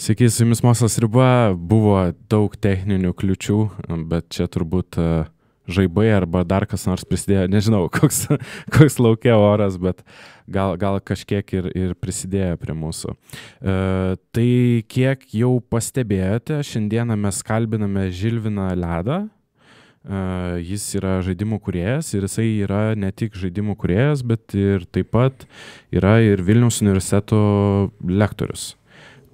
Sveiki, su jumis Mokslas riba, buvo daug techninių kliučių, bet čia turbūt žaibai arba dar kas nors prisidėjo, nežinau, koks laukia oras, bet gal kažkiek ir prisidėjo prie mūsų. Tai kiek jau pastebėjote, šiandieną mes kalbiname Žilviną Ledą. Jis yra žaidimų kūrėjas ir jisai yra ne tik žaidimų kūrėjas, bet ir taip pat yra ir Vilniaus universiteto lektorius.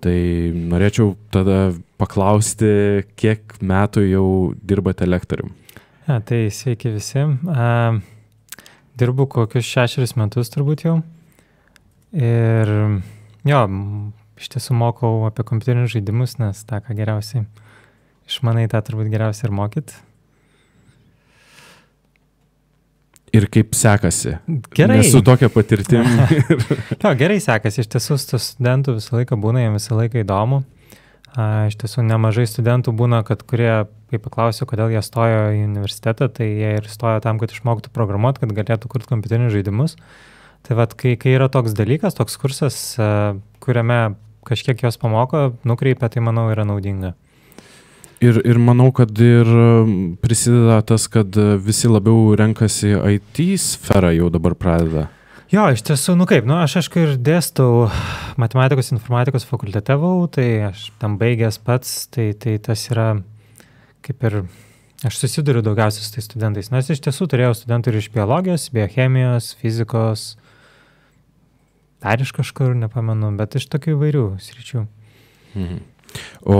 Tai norėčiau tada paklausti, kiek metų jau dirbate lektorium? Tai sveiki visi. Dirbu kokius 6 metus turbūt jau. Ir jo, iš tiesų mokau apie kompiuterinius žaidimus, nes tą, ką geriausiai išmanai, tą turbūt geriausiai ir mokyt. Ir kaip sekasi? Gerai. Nesu tokia patirtim. Jo, gerai sekasi. Iš tiesų studentų visą laiką būna, jiems visą laiką įdomu. Iš tiesų nemažai studentų būna, kurie, kai paklausiu, kodėl jie stojo į universitetą, tai jie ir stojo tam, kad išmoktų programuoti, kad galėtų kurti kompiuterinius žaidimus. Tai vat, kai yra toks dalykas, toks kursas, kuriame kažkiek jos pamoko, nukreipia, tai manau yra naudinga. Ir manau, kad ir prisideda tas, kad visi labiau renkasi IT sferą jau dabar pradeda. Jo, iš tiesų, aš aišku ir dėstau matematikos informatikos fakultete, tai aš tam baigęs pats, tai tas yra kaip ir, aš susiduriu daugiausiai su tais studentais, nes iš tiesų turėjau studentų ir iš biologijos, biochemijos, fizikos, dar iš kažkur, nepamenu, bet iš tokių įvairių sričių. Mhm. O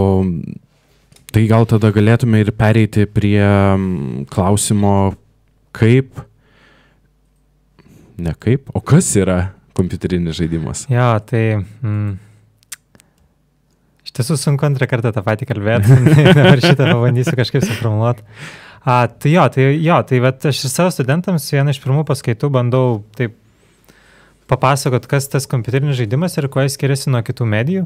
tai gal tada galėtume ir pereiti prie klausimo, o kas yra kompiuterinis žaidimas? Jo, tai iš tiesų sunku antrą kartą tą patį kalbėti, dabar šitą pabandysiu kažkaip suformuluoti. Tai vat aš ir savo studentams vieną iš pirmų paskaitų bandau taip papasakot, kas tas kompiuterinis žaidimas ir kuo jis skiriasi nuo kitų medijų.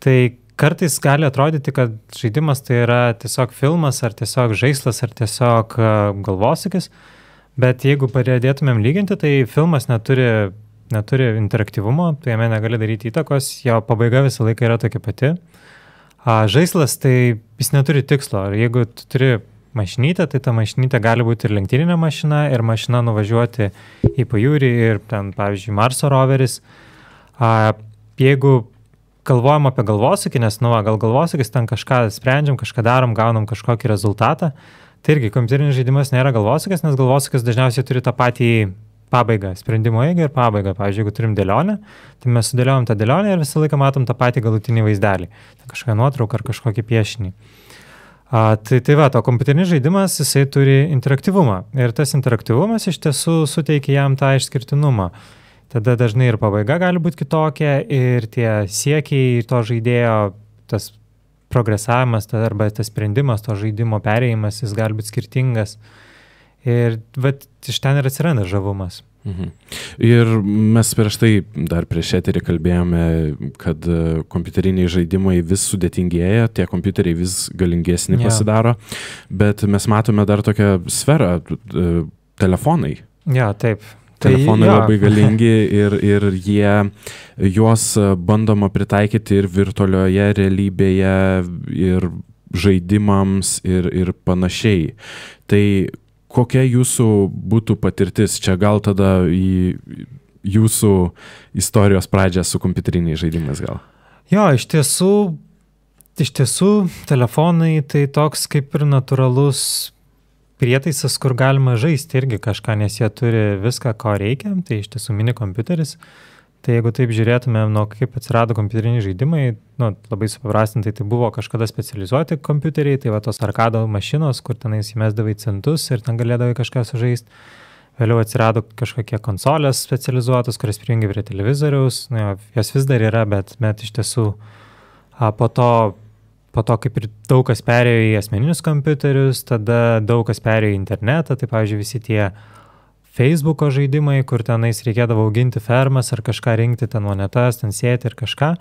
Tai kartais gali atrodyti, kad žaidimas tai yra tiesiog filmas, ar tiesiog žaislas, ar tiesiog galvosūkis, bet jeigu pradėtumėm lyginti, tai filmas neturi interaktyvumo, tai jame negali daryti įtakos, jo pabaiga visą laiką yra tokia pati. Žaislas tai jis neturi tikslo, ir jeigu tu turi mašinytę, tai ta mašinytė gali būti ir lenktyninė mašina, ir mašina nuvažiuoti į pajūrį, ir ten, pavyzdžiui, Marso roveris. Jeigu galvojam apie galvosūkį, nes gal galvosūkis ten kažką sprendžiam, kažką darom, gaunam kažkokį rezultatą, tai irgi kompiuterinis žaidimas nėra galvosūkis, nes galvosūkis dažniausiai turi tą patį pabaigą, sprendimo eigą ir pabaigą. Pavyzdžiui, jeigu turim dėlionę, tai mes sudėliojam tą dėlionę ir visą laiką matom tą patį galutinį vaizdelį, kažkokią nuotrauką ar kažkokį piešinį. Tai va, o kompiuterinis žaidimas, jisai turi interaktyvumą ir tas interaktyvumas iš tiesų suteikia jam tą išskirtinumą. Tada dažnai ir pabaiga gali būti kitokia ir tie siekiai to žaidėjo, tas progresavimas arba tas sprendimas, to žaidimo perėjimas, jis gali būti skirtingas. Ir iš ten ir atsiranda žavumas. Mhm. Ir mes dar prieš eterį kalbėjome, kad kompiuteriniai žaidimai vis sudėtingėja, tie kompiuteriai vis galingesni pasidaro, bet mes matome dar tokią sferą, telefonai. Ja, taip. Telefonai labai galingi ir juos bandoma pritaikyti ir virtualioje realybėje, ir žaidimams, ir panašiai. Tai kokia jūsų būtų patirtis? Čia gal tada į jūsų istorijos pradžią su kompiuteriniais žaidimais gal? Jo, iš tiesų telefonai tai toks kaip ir natūralus prietaisas, kur galima žaisti irgi kažką, nes jie turi viską, ko reikia, tai iš tiesų mini kompiuteris. Tai jeigu taip žiūrėtumėm, kaip atsirado kompiuteriniai žaidimai, labai supaprastintai, tai buvo kažkada specializuoti kompiuteriai, tai va tos arkado mašinos, kur tenais įmesdavai centus ir ten galėdavai kažką sužaisti. Vėliau atsirado kažkokie konsolės specializuotos, kurias prijungi prie televizoriaus, jos vis dar yra, bet iš tiesų po to kaip ir daug kas perėjo į asmeninius kompiuterius, tada daug kas perėjo į internetą, tai pavyzdžiui visi tie Facebooko žaidimai, kur tenais reikėdavo auginti fermas ar kažką rinkti, ten monetas, ten sėti ir kažką.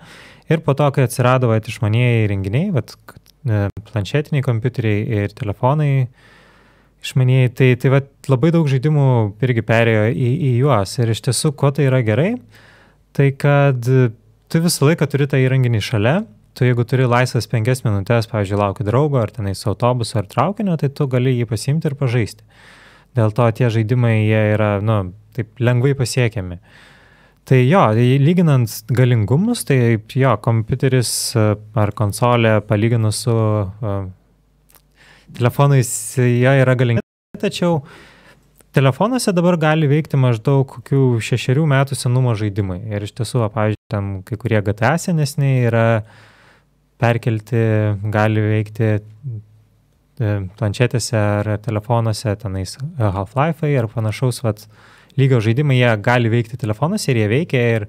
Ir po to, kai atsirado išmanieji įrenginiai, planšetiniai kompiuteriai ir telefonai, išmanieji, tai va, labai daug žaidimų irgi perėjo į juos. Ir iš tiesų, ko tai yra gerai, tai kad tu visą laiką turi tą įrenginį šalia. Tu jeigu turi laisvas 5 minutės, pavyzdžiui, lauki draugo, ar tenais autobuso, ar traukinio, tai tu gali jį pasiimti ir pažaisti. Dėl to tie žaidimai, jie yra, taip lengvai pasiekiami. Tai jo, lyginant galingumus, tai jo, kompiuteris ar konsolė palyginus su telefonais, jie yra galingi. Tačiau telefonuose dabar gali veikti maždaug kokių 6 metų senumo žaidimai. Ir iš tiesų, pavyzdžiui, ten kai kurie GTA senesniai yra perkelti, gali veikti planšetėse ar telefonuose, tenais Half-Life'ai ar panašaus lygio žaidimai, jie gali veikti telefonuose ir jie veikia. Ir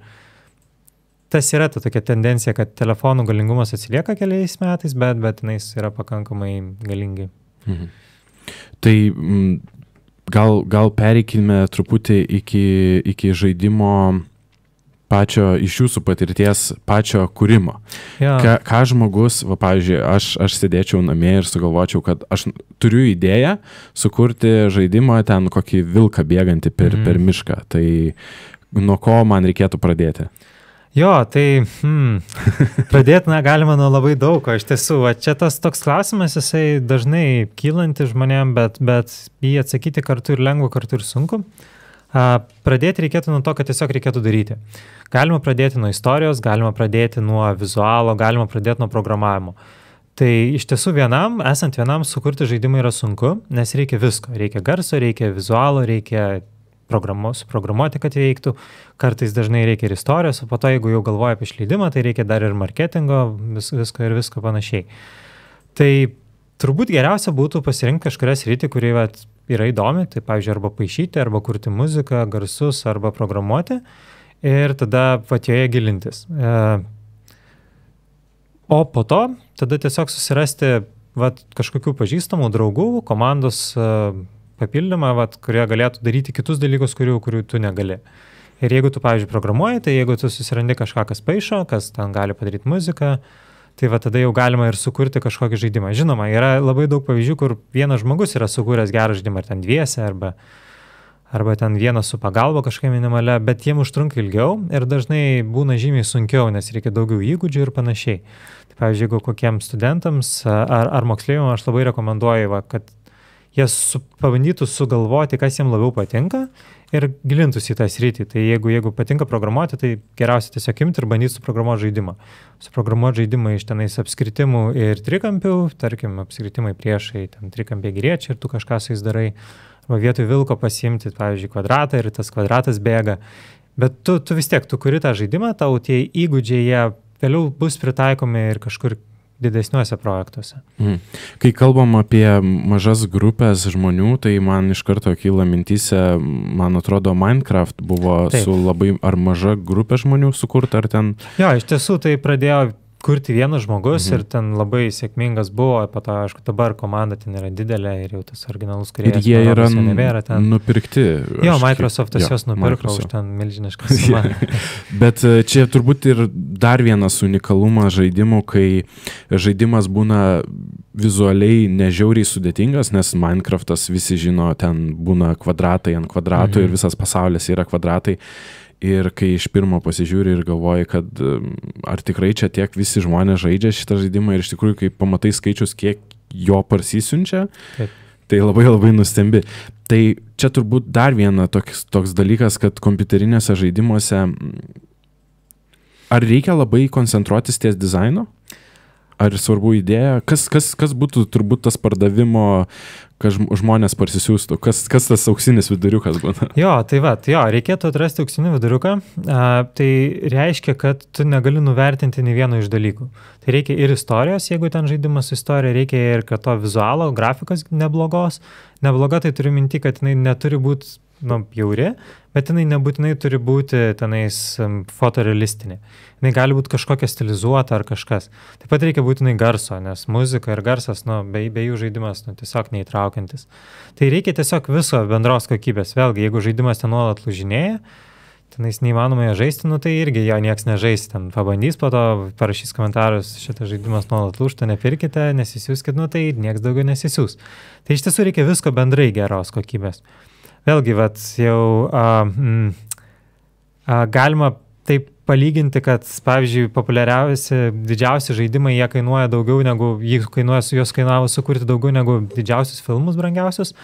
tas yra ta tokia tendencija, kad telefonų galingumas atsilieka keliais metais, bet tenais yra pakankamai galingi. Mhm. Tai gal pereikime truputį iki žaidimo pačio, iš jūsų patirties, pačio kūrimo. Ja. Ką žmogus, pavyzdžiui, aš sėdėčiau namie ir sugalvočiau, kad aš turiu idėją sukurti žaidimą ten kokį vilką bėgantį per mišką. Tai nuo ko man reikėtų pradėti? Jo, tai pradėti galima nuo labai daug, o iš tiesų, čia tas toks klausimas, jisai dažnai kylanti žmonėm, bet jį atsakyti kartu ir lengva, kartu ir sunku. Pradėti reikėtų nuo to, kad tiesiog reikėtų daryti. Galima pradėti nuo istorijos, galima pradėti nuo vizualo, galima pradėti nuo programavimo. Tai iš tiesų esant vienam sukurti žaidimą yra sunku, nes reikia visko. Reikia garso, reikia vizualo, reikia suprogramuoti, kad veiktų. Kartais dažnai reikia ir istorijos, o po to, jeigu jau galvoja apie išleidimą, tai reikia dar ir marketingo, visko panašiai. Tai turbūt geriausia būtų pasirinkti kažkurią sritį, kuri yra įdomi, tai pavyzdžiui, arba paišyti, arba kurti muziką, garsus, arba programuoti ir tada joje gilintis. O po to tada tiesiog susirasti kažkokių pažįstamų draugų, komandos papildymą, kurie galėtų daryti kitus dalykus, kurių tu negali. Ir jeigu tu, pavyzdžiui, programuoji, tai jeigu tu susirandi kažką, kas paišo, kas ten gali padaryti muziką, tai tada jau galima ir sukurti kažkokį žaidimą. Žinoma, yra labai daug pavyzdžių, kur vienas žmogus yra sukūręs gerą žaidimą, ar ten dviese, arba ten vienas su pagalba kažkokia minimalia, bet jiem užtrunka ilgiau ir dažnai būna žymiai sunkiau, nes reikia daugiau įgūdžių ir panašiai. Tai pavyzdžiui, jeigu kokiems studentams ar moksleiviams aš labai rekomenduoju, kad jie pabandytų sugalvoti, kas jiems labiau patinka ir gilintųsi į tą sritį. Tai jeigu patinka programuoti, tai geriausia tiesiog imti ir bandyti suprogramuoti žaidimą. Suprogramuoti žaidimą iš tenais apskritimų ir trikampių, tarkim, apskritimai priešai, ten trikampiai geriečiai ir tu kažką su jais darai. Arba vietoj vilko pasiimti, pavyzdžiui, kvadratą ir tas kvadratas bėga. Bet tu vis tiek, tu kuri tą žaidimą, tau tie įgūdžiai, jie vėliau bus pritaikomi ir kažkur didesniuose projektuose. Kai kalbam apie mažas grupės žmonių, tai man iš karto kyla mintyse, man atrodo, Minecraft buvo su labai ar maža grupė žmonių sukurta, ar ten... Jo, iš tiesų tai pradėjo kurti vienas žmogus ir ten labai sėkmingas buvo, po to, aišku, dabar komanda ten yra didelė ir jau tas originalus kūrėjas. Ir jie yra nupirkti. Jo, Microsoftas juos nupirko už ten milžinišką sumą. Bet čia turbūt ir dar vienas unikalumas žaidimų, kai žaidimas būna vizualiai nežiauriai sudėtingas, nes Minecraftas visi žino, ten būna kvadratai ant kvadratų ir visas pasaulis yra kvadratai. Ir kai iš pirmo pasižiūri ir galvoji, kad ar tikrai čia tiek visi žmonės žaidžia šitą žaidimą ir iš tikrųjų, kai pamatai skaičius, kiek jo parsisiunčia, tai labai labai nustembi. Tai čia turbūt dar viena toks dalykas, kad kompiuterinėse žaidimuose ar reikia labai koncentruotis ties dizaino? Ar svarbu idėja? Kas būtų turbūt tas pardavimo, kad žmonės parsisiųstų? Kas tas auksinis viduriukas būna? Jo, reikėtų atrasti auksinį viduriuką. Tai reiškia, kad tu negali nuvertinti nei vieno iš dalykų. Tai reikia ir istorijos, jeigu ten žaidimas su istorija, reikia ir kad to vizualo, grafikos neblogos. Nebloga tai turiu minti, kad jinai neturi būti bjauri, bet jinai nebūtinai turi būti tenais fotorealistinė. Jinai gali būti kažkokia stilizuota ar kažkas. Taip pat reikia būtinai garso, nes muzika ir garsas, be jų žaidimas tiesiog neįtraukiantis. Tai reikia tiesiog viso bendros kokybės. Vėlgi, jeigu žaidimas ten nuolat lūžinėja, tenais neįmanoma žaisti, nu tai irgi jo nieks nežais, ten pabandys, po to parašys komentarus, šitas žaidimas nuolat lūžta, nepirkite, nesisiųskit, nu tai nieks daugiau nesisiūs. Tai iš tiesų reikia visko bendrai geros kokybės. Vėlgi, vat, jau galima taip palyginti, kad, pavyzdžiui, populiariausi, didžiausi žaidimai, jie kainuoja daugiau negu, juos kainavo sukurti daugiau negu didžiausius filmus brangiausius.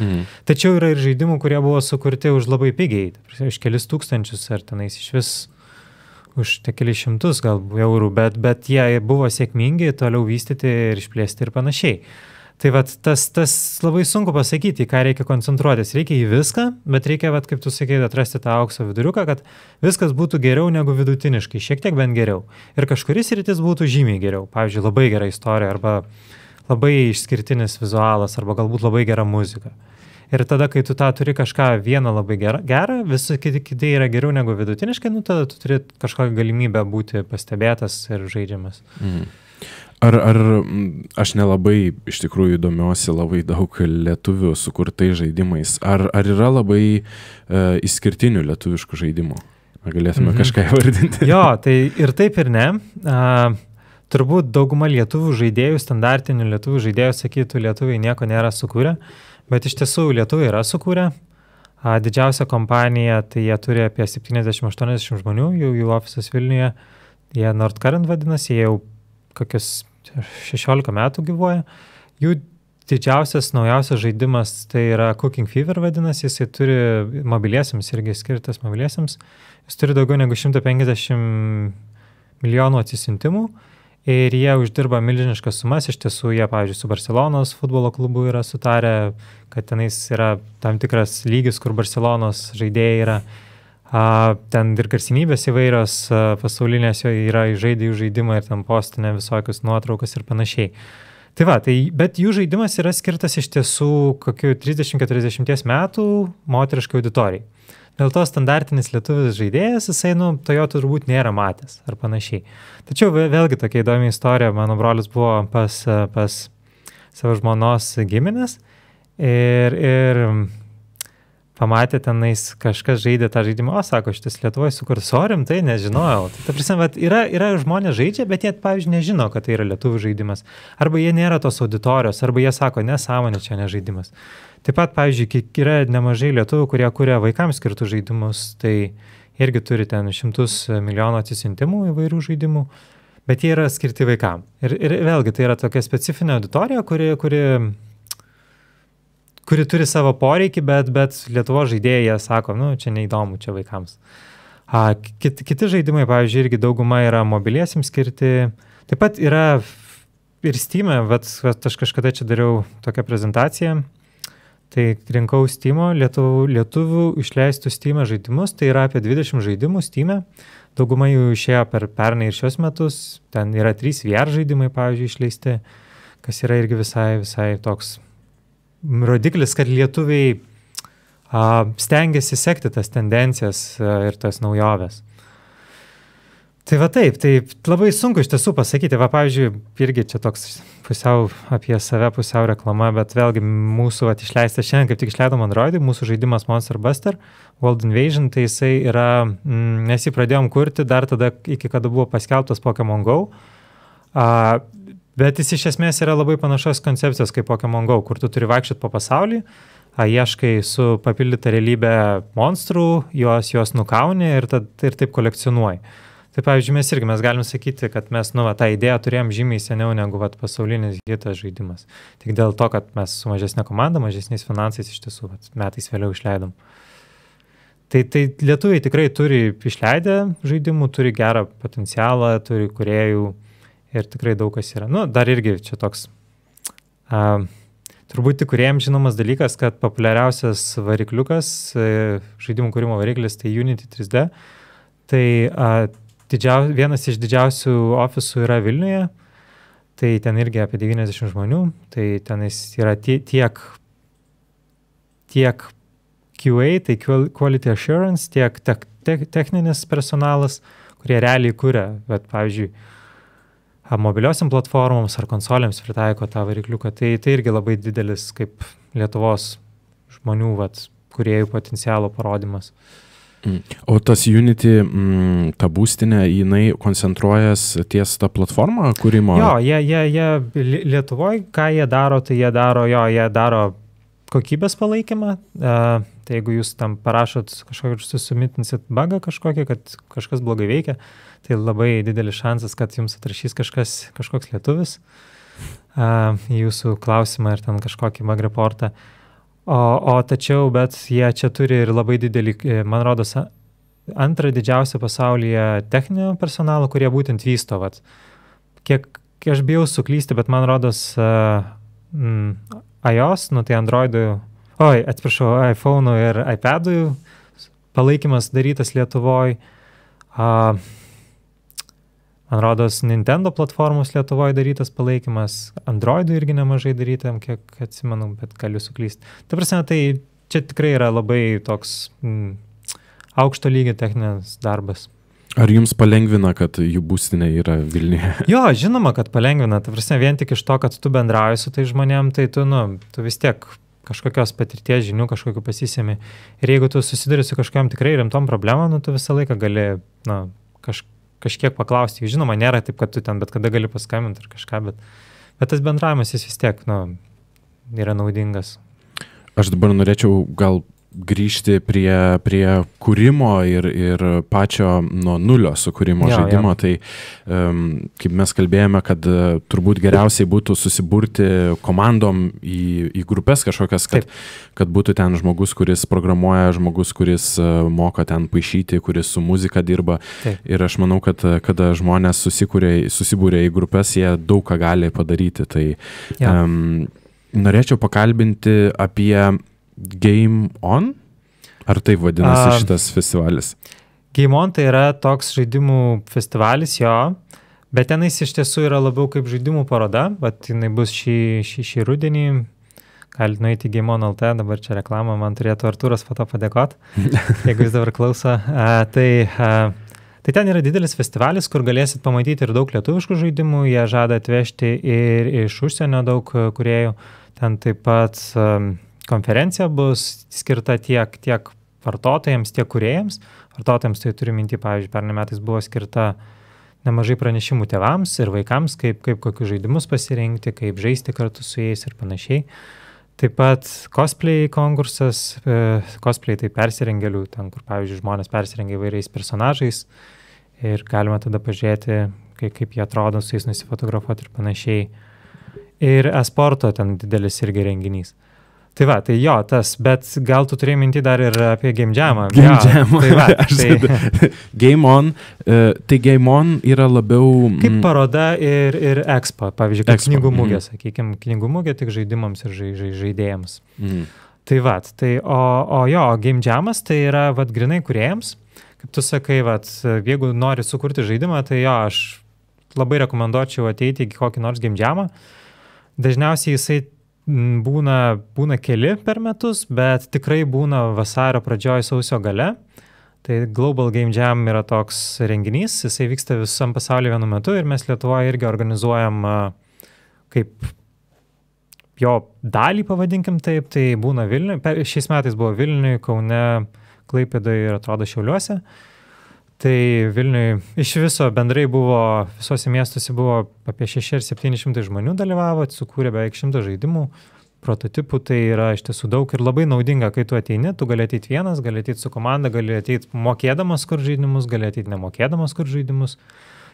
Tačiau yra ir žaidimų, kurie buvo sukurti už labai pigiai, už kelis tūkstančius ar tenais iš vis už kelis šimtus gal eurų, bet jie buvo sėkmingi, toliau vystyti ir išplėsti ir panašiai. Tai vat, tas labai sunku pasakyti, ką reikia koncentruotis. Reikia į viską, bet reikia, vat, kaip tu sakei, atrasti tą aukso viduriuką, kad viskas būtų geriau negu vidutiniškai, šiek tiek bent geriau. Ir kažkuris rytis būtų žymiai geriau. Pavyzdžiui, labai gera istorija, arba labai išskirtinis vizualas, arba galbūt labai gera muzika. Ir tada, kai tu tą turi kažką vieną labai gerą, visi kiti yra geriau negu vidutiniškai, nu tada tu turi kažkokią galimybę būti pastebėtas ir žaidžiamas. Ar aš nelabai iš tikrųjų domiuosi labai daug lietuvių sukurtai žaidimais. Ar yra labai išskirtinių lietuviškų žaidimų? Ar galėtume kažką įvardinti? Jo, tai ir taip ir ne. Turbūt dauguma lietuvių žaidėjų, standartinių lietuvių žaidėjų sakytų, lietuviai nieko nėra sukūrę, bet iš tiesų lietuviai yra sukūrę. Didžiausia kompanija, tai jie turi apie 70-80 žmonių, jų ofisas Vilniuje, jie Nordcurrent vadinasi, jie jau kokius 16 metų gyvuoja. Jų didžiausias, naujausias žaidimas tai yra Cooking Fever vadinasi, jisai turi mobiliesiams, irgi skirtas mobiliesiams. Jis turi daugiau negu 150 milijonų atsisiuntimų ir jie uždirba milžiniškas sumas. Iš tiesų, jie, pavyzdžiui, su Barcelonos futbolo klubu yra sutarę, kad tenais yra tam tikras lygis, kur Barcelonos žaidėjai yra. Ten ir garsinybės įvairios pasaulinės yra žaidė jų žaidimą ir ten postinė visokius nuotraukas ir panašiai. Tai va, bet jų žaidimas yra skirtas iš tiesų kokių 30-40 metų moteriškai auditorijai. Dėl to standartinis lietuvis žaidėjas, jisai, to jo turbūt nėra matęs ar panašiai. Tačiau vėlgi tokia įdomi istorija, mano brolis buvo pas savo žmonos giminės ir pamatė tenais kažkas žaidė tą žaidimą, sako, šitas Lietuvoje sukurs, rimtai nežinojau. Tai prasme, yra žmonės žaidžia, bet jie, pavyzdžiui, nežino, kad tai yra lietuvių žaidimas. Arba jie nėra tos auditorijos, arba jie sako, nesąmonė, čia ne žaidimas. Taip pat, pavyzdžiui, yra nemažai lietuvių, kurie kuria vaikams skirtų žaidimus, tai irgi turi ten 100 milijonų atsisiuntimų įvairių žaidimų, bet jie yra skirti vaikam. Ir vėlgi, tai yra tokia specifinė auditorija, kuri turi savo poreikį, bet Lietuvos žaidėjai sako, čia neįdomu, čia vaikams. Kiti žaidimai, pavyzdžiui, irgi dauguma yra mobiliesiams skirti. Taip pat yra ir Steam'e, aš kažkada čia dariau tokią prezentaciją, tai rinkau Steam'o, lietuvių išleistų Steam'e žaidimus, tai yra apie 20 žaidimų Steam'e. Dauguma jų išėjo per pernai ir šios metus, ten yra 3 VR žaidimai, pavyzdžiui, išleisti, kas yra irgi visai toks rodiklis, kad lietuviai stengiasi sekti tas tendencijas ir tas naujoves. Tai va taip, tai labai sunku iš tiesų pasakyti. Va, pavyzdžiui, irgi čia toks pusiau apie save, pusiau reklama, bet vėlgi mūsų išleistas šiandien, kaip tik išleidom Androidui, mūsų žaidimas Monster Buster, World Invasion, tai jisai yra, mes jį pradėjom kurti dar tada, iki kada buvo paskelbtas Pokémon Go. Bet jis iš esmės yra labai panašios koncepcijos kaip Pokémon Go, kur tu turi vaikščioti po pasaulį, ieškai su papildyta realybė monstrų, juos nukauni ir taip kolekcionuoji. Tai pavyzdžiui, mes galim sakyti, kad mes tą idėją turėjom žymiai seniau negu pasaulinis hitas žaidimas. Tik dėl to, kad mes su mažesnė komanda, mažesniais finansais iš tiesų metais vėliau išleidom. Tai lietuviai tikrai turi išleidę žaidimų, turi gerą potencialą, turi kūrėjų. Ir tikrai daug kas yra. Dar irgi čia toks, turbūt tik kūrėjams žinomas dalykas, kad populiariausias varikliukas, žaidimų kūrimo variklis, tai Unity 3D. Tai vienas iš didžiausių ofisų yra Vilniuje, tai ten irgi apie 90 žmonių, tai tenais yra tiek QA, tai Quality Assurance, tiek techninis personalas, kurie realiai kuria, bet pavyzdžiui, mobiliosiam platformoms ar konsolėms pritaiko tą varikliuką. Tai irgi labai didelis kaip Lietuvos žmonių kūrėjų potencialo parodymas. O tas Unity, ta būstinė, jinai koncentruojas ties tą platformą kūrimo? Jo, jie Lietuvoje, ką jie daro, tai jie daro kokybės palaikymą. Tai jeigu jūs tam parašot kažkokį, susumitinsit bugą kažkokį, kad kažkas blogai veikia, tai labai didelis šansas, kad jums atrašys kažkoks lietuvis į jūsų klausimą ir ten kažkokį bug reportą. O tačiau, bet jie čia turi ir labai didelį, man rodos, antrą didžiausią pasaulyje techninio personalo, kurie būtent vysto. Vat. Kiek aš bijau suklysti, bet man rodos iOS, tai Androidų, iPhone'ų ir iPad'ų palaikymas darytas Lietuvoje. Man rodos, Nintendo platformos Lietuvoje darytas palaikymas, Androidų irgi nemažai darytam, kiek atsimenu, bet galiu suklysti. Ta prasme, tai čia tikrai yra labai toks aukšto lygio techninis darbas. Ar jums palengvina, kad jų būstinė yra Vilniuje? Jo, žinoma, kad palengvina. Ta prasme, vien tik iš to, kad tu bendrauji su tai žmonėm, tai tu vis tiek kažkokios patirties žinių kažkokiu pasisemi. Ir jeigu tu susiduri su kažkokiam tikrai rimtom problemom, tu visą laiką gali kažkiek paklausti. Žinoma, nėra taip, kad tu ten bet kada gali paskambinti ar kažką, bet tas bendravimas jis vis tiek yra naudingas. Aš dabar norėčiau gal grįžti prie kūrimo ir pačio nuo nulio sukūrimo žaidimo. Tai kaip mes kalbėjome, kad turbūt geriausiai būtų susiburti komandom į grupės kažkokias, kad būtų ten žmogus, kuris programuoja, žmogus, kuris moka ten paišyti, kuris su muzika dirba. Taip. Ir aš manau, kad kada žmonės susibūrė į grupės, jie daug ką gali padaryti. Tai norėčiau pakalbinti apie Game On? Ar taip vadinasi šitas festivalis? Game On tai yra toks žaidimų festivalis, jo, bet tenais iš tiesų yra labiau kaip žaidimų paroda, bet jinai bus šį rudenį. Galite nueiti į Game On LT, dabar čia reklamą, man turėtų Artūras po to padėkoti, jeigu jis dabar klauso. Tai ten yra didelis festivalis, kur galėsit pamatyti ir daug lietuviškų žaidimų, jie žada atvežti ir iš užsienio daug kūrėjų. Ten taip pat konferencija bus skirta tiek vartotojams, tiek kūrėjams. Vartotojams tai turiu minti, pavyzdžiui, pernai metais buvo skirta nemažai pranešimų tėvams ir vaikams, kaip kokius žaidimus pasirinkti, kaip žaisti kartu su jais ir panašiai. Taip pat cosplay konkursas, cosplay tai persirengėlių, ten kur, pavyzdžiui, žmonės persirengia įvairiais personažais ir galima tada pažiūrėti, kaip jie atrodo, su jais nusifotografuoti ir panašiai. Ir e-sporto ten didelis irgi renginys. Tai va, tai jo, bet gal tu turėjai minti dar ir apie Game Jamą. Game Jamą. Game On, tai Game On yra labiau... Kaip paroda ir Expo, pavyzdžiui, kaip knygų mugė, sakykime, knygų mugė tik žaidimams ir žaidėjams. Tai va, o Game Jamas tai yra grinai kūrėjams. Kaip tu sakai, jeigu nori sukurti žaidimą, tai jo, aš labai rekomenduočiau ateiti į kokį nors Game Jamą. Dažniausiai jisai būna keli per metus, bet tikrai būna vasario pradžioj, sausio gale. Tai Global Game Jam yra toks renginys, jisai vyksta visam pasaulyje vienu metu ir mes Lietuvoje irgi organizuojam kaip jo dalį, pavadinkim taip, tai būna Vilniuje. Šiais metais buvo Vilniuje, Kaune, Klaipėdoje ir atrodo Šiauliuose. Tai Vilniuje iš viso bendrai buvo, visose miestuose buvo apie 600 ar 700 žmonių dalyvavo, sukūrė beveik 100 žaidimų, prototipų, tai yra iš tiesų daug ir labai naudinga, kai tu ateini, tu gali ateiti vienas, gali ateiti su komanda, gali ateiti mokėdamas kur žaidimus, gali ateiti nemokėdamas kur žaidimus.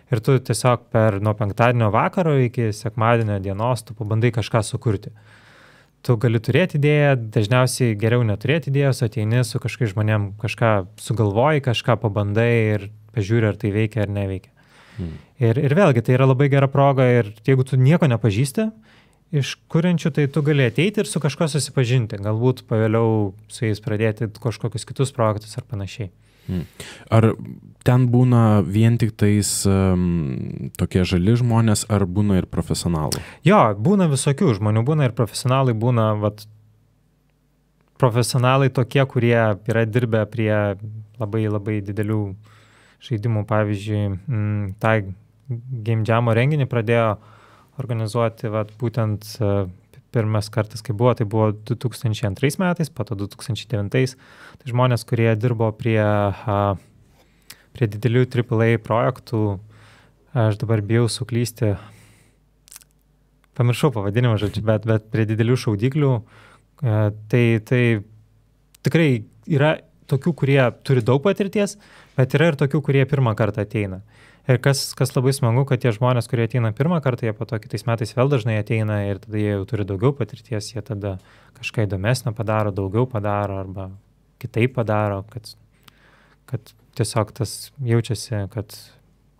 Ir tu tiesiog nuo penktadienio vakaro iki sekmadienio dienos tu pabandai kažką sukurti. Tu gali turėti idėją, dažniausiai geriau neturėti idėjos, ateini su kažkai žmonėm, kažką sugalvoji, kažką pabandai ir pažiūri, ar tai veikia ar neveikia. Ir vėlgi, tai yra labai gera proga ir jeigu tu nieko nepažįsti iš kuriančių, tai tu gali ateiti ir su kažko susipažinti, galbūt pavėliau su jais pradėti kažkokius kitus projektus ar panašiai. Ar ten būna vien tik tais tokie žali žmonės, ar būna ir profesionalų? Jo, būna visokių žmonių, būna ir profesionalai, būna profesionalai tokie, kurie yra dirbę prie labai labai didelių žaidimų. Pavyzdžiui, tą Game Jam'o renginį pradėjo organizuoti būtent pirmas kartas, kai buvo, tai buvo 2002 metais, po to 2009. Tai žmonės, kurie dirbo prie didelių AAA projektų, aš dabar bijau suklysti, pamiršau pavadinimą, žodžiu, bet prie didelių šaudiklių, tai tikrai yra tokių, kurie turi daug patirties, bet yra ir tokių, kurie pirmą kartą ateina. Ir kas labai smagu, kad tie žmonės, kurie ateina pirmą kartą, jie po to kitais metais vėl dažnai ateina ir tada jie jau turi daugiau patirties, jie tada kažką įdomesnio padaro, daugiau padaro arba kitaip padaro, kad tiesiog tas jaučiasi, kad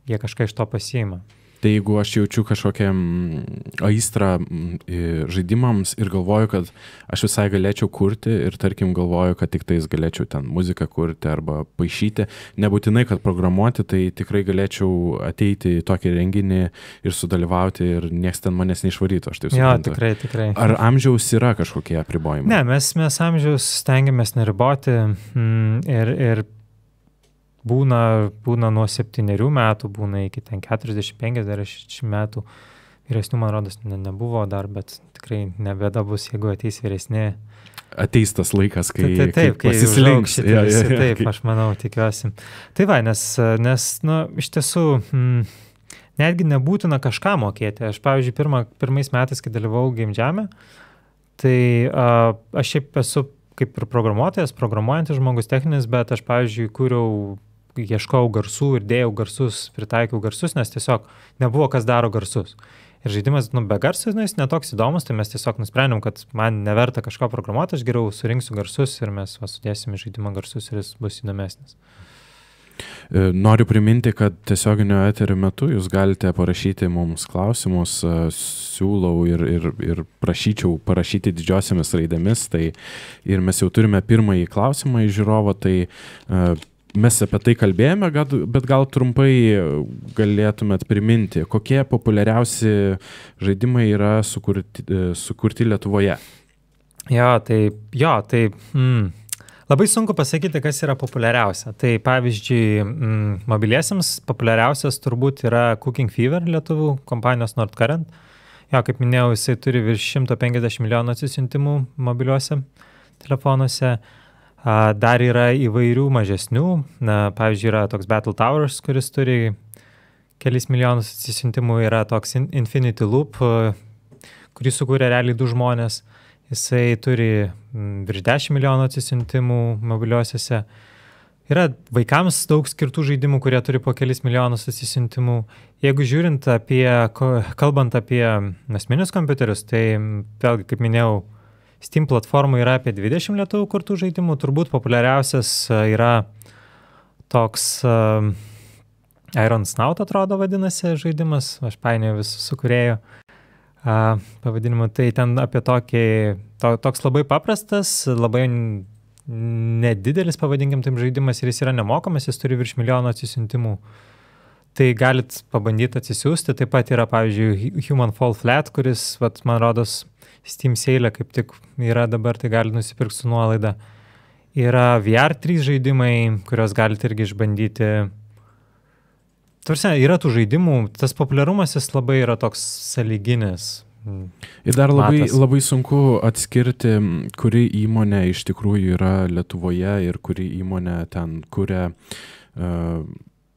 jie kažką iš to pasiima. Tai jeigu aš jaučiu kažkokią aistrą žaidimams ir galvoju, kad aš visai galėčiau kurti ir tarkim galvoju, kad tik tais galėčiau ten muziką kurti arba paišyti, nebūtinai, kad programuoti, tai tikrai galėčiau ateiti į tokį renginį ir sudalyvauti ir nieks ten manęs neišvarytų, aš taip suprantu. Jo, tikrai. Ar amžiaus yra kažkokie apribojimai? Ne, mes amžiaus stengiamės neriboti ir būna nuo 7 metų, būna iki ten 40-50 metų. Vyresnių, man rodos, nebuvo dar, bet tikrai nebėda bus, jeigu ateis vyresni. Ateis tas laikas, kai pasislinks. Taip, aš manau, tikiuosi. Tai va, nes iš tiesų, netgi nebūtina kažką mokėti. Aš, pavyzdžiui, pirmais metais, kai dalyvau Game Jam'e, tai aš šiaip esu kaip ir programuojantis žmogus techninis, bet aš, pavyzdžiui, ieškau garsų ir dėjau garsus, pritaikiau garsus, nes tiesiog nebuvo kas daro garsus. Ir žaidimas, be garsų, jis netoks įdomus, tai mes tiesiog nusprendėm, kad man neverta kažko programuoti, aš geriau surinksiu garsus ir mes sudėsim į žaidimą garsus ir jis bus įdomesnis. Noriu priminti, kad tiesioginio eterio metu jūs galite parašyti mums klausimus, siūlau ir prašyčiau parašyti didžiosiamis raidėmis, tai ir mes jau turime pirmąjį klausimą iš žiūrovo, tai mes apie tai kalbėjome, bet gal trumpai galėtumėt priminti, kokie populiariausi žaidimai yra sukurti Lietuvoje? Labai sunku pasakyti, kas yra populiariausia. Tai pavyzdžiui, mobiliesiems populiariausias turbūt yra Cooking Fever lietuvių kompanijos Nordcurrent. Kaip minėjau, jisai turi virš 150 milijonų atsisiuntimų mobiliuose telefonuose. Dar yra įvairių mažesnių. Pavyzdžiui, yra toks Battle Towers, kuris turi kelis milijonus atsisiuntimų. Yra toks Infinity Loop, kurį sukūrė realiai 2 žmonės. Jisai turi virš 10 milijonų atsisiuntimų mobiliuosiuose. Yra vaikams daug skirtų žaidimų, kurie turi po kelis milijonus atsisiuntimų. Jeigu kalbant apie asmeninius kompiuterius, tai vėlgi, kaip minėjau, Steam platformų yra apie 20 lietuvių kurtų žaidimų. Turbūt populiariausias yra toks Iron Snout, atrodo, vadinasi žaidimas. Aš painioju visus su kūrėjų pavadinimu. Tai ten apie toks labai paprastas, labai nedidelis, pavadinkim taip, žaidimas ir jis yra nemokamas, jis turi virš milijono atsisiuntimų. Tai galit pabandyti atsisiųsti. Taip pat yra, pavyzdžiui, Human Fall Flat, kuris, man rodos, Steam sale kaip tik yra dabar, tai galite nusipirkti su nuolaida. Yra VR3 žaidimai, kuriuos galite irgi išbandyti. Tarsi, yra tų žaidimų, tas populiarumas jis labai yra toks sąlyginis. Ir dar labai sunku atskirti, kuri įmonė iš tikrųjų yra Lietuvoje ir kuri įmonė ten kuria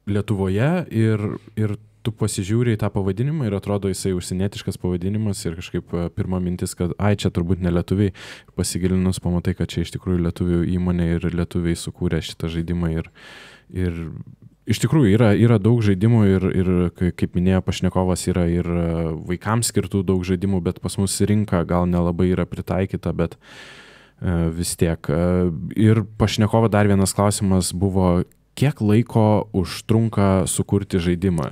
Lietuvoje ir tu pasižiūri į tą pavadinimą ir atrodo jisai užsienietiškas pavadinimas ir kažkaip pirma mintis, kad čia turbūt ne lietuviai, pasigilinus pamatai, kad čia iš tikrųjų lietuvių įmonė ir lietuviai sukūrė šitą žaidimą ir iš tikrųjų yra daug žaidimų ir kaip minėjo pašnekovas, yra ir vaikams skirtų daug žaidimų, bet pas mus rinka gal nelabai yra pritaikyta, bet vis tiek. Ir pašnekovo dar vienas klausimas buvo, kiek laiko užtrunka sukurti žaidimą?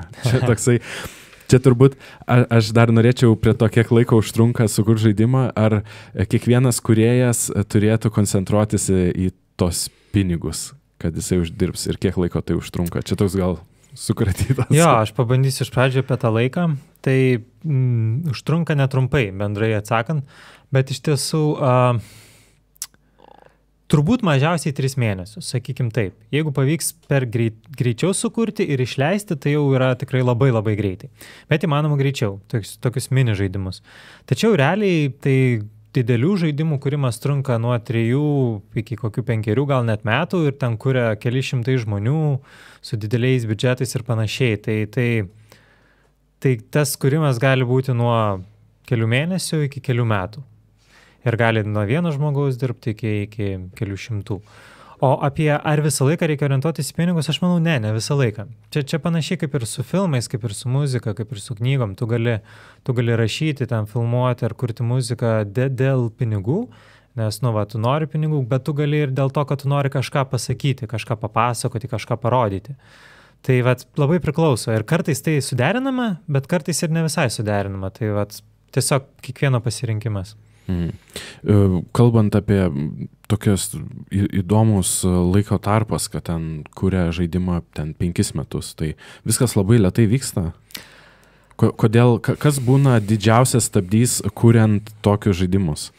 Čia turbūt, aš dar norėčiau prie to, kiek laiko užtrunka sukurti žaidimą, ar kiekvienas kūrėjas turėtų koncentruotis į tos pinigus, kad jisai uždirbs ir kiek laiko tai užtrunka. Čia toks gal sukratytas. Aš pabandysiu iš pradžio apie tą laiką. Tai užtrunka netrumpai, bendrai atsakant, bet iš tiesų Turbūt mažiausiai 3 mėnesius, sakykim taip. Jeigu pavyks per greičiau sukurti ir išleisti, tai jau yra tikrai labai labai greitai. Bet įmanoma greičiau, tokius mini žaidimus. Tačiau realiai tai didelių žaidimų kūrimas trunka nuo 3 iki kokių 5 gal net metų ir ten kuria keli šimtai žmonių su dideliais biudžetais ir panašiai. Tai tas kūrimas gali būti nuo kelių mėnesių iki kelių metų. Ir gali nuo vieno žmogaus dirbti iki kelių šimtų. O apie ar visą laiką reikia orientuotis į pinigus, aš manau, ne visą laiką. Čia panašiai kaip ir su filmais, kaip ir su muzika, kaip ir su knygom. Tu gali rašyti, ten filmuoti ar kurti muziką dėl pinigų, nes, tu nori pinigų, bet tu gali ir dėl to, kad tu nori kažką pasakyti, kažką papasakoti, kažką parodyti. Tai labai priklauso. Ir kartais tai suderinama, bet kartais ir ne visai suderinama. Tai tiesiog kiekvieno pasirinkimas. Kalbant apie tokios įdomus laiko tarpas, kad ten kuria žaidimą ten 5 metus, tai viskas labai lėtai vyksta. Kodėl, kas būna didžiausias stabdys kuriant tokius žaidimus?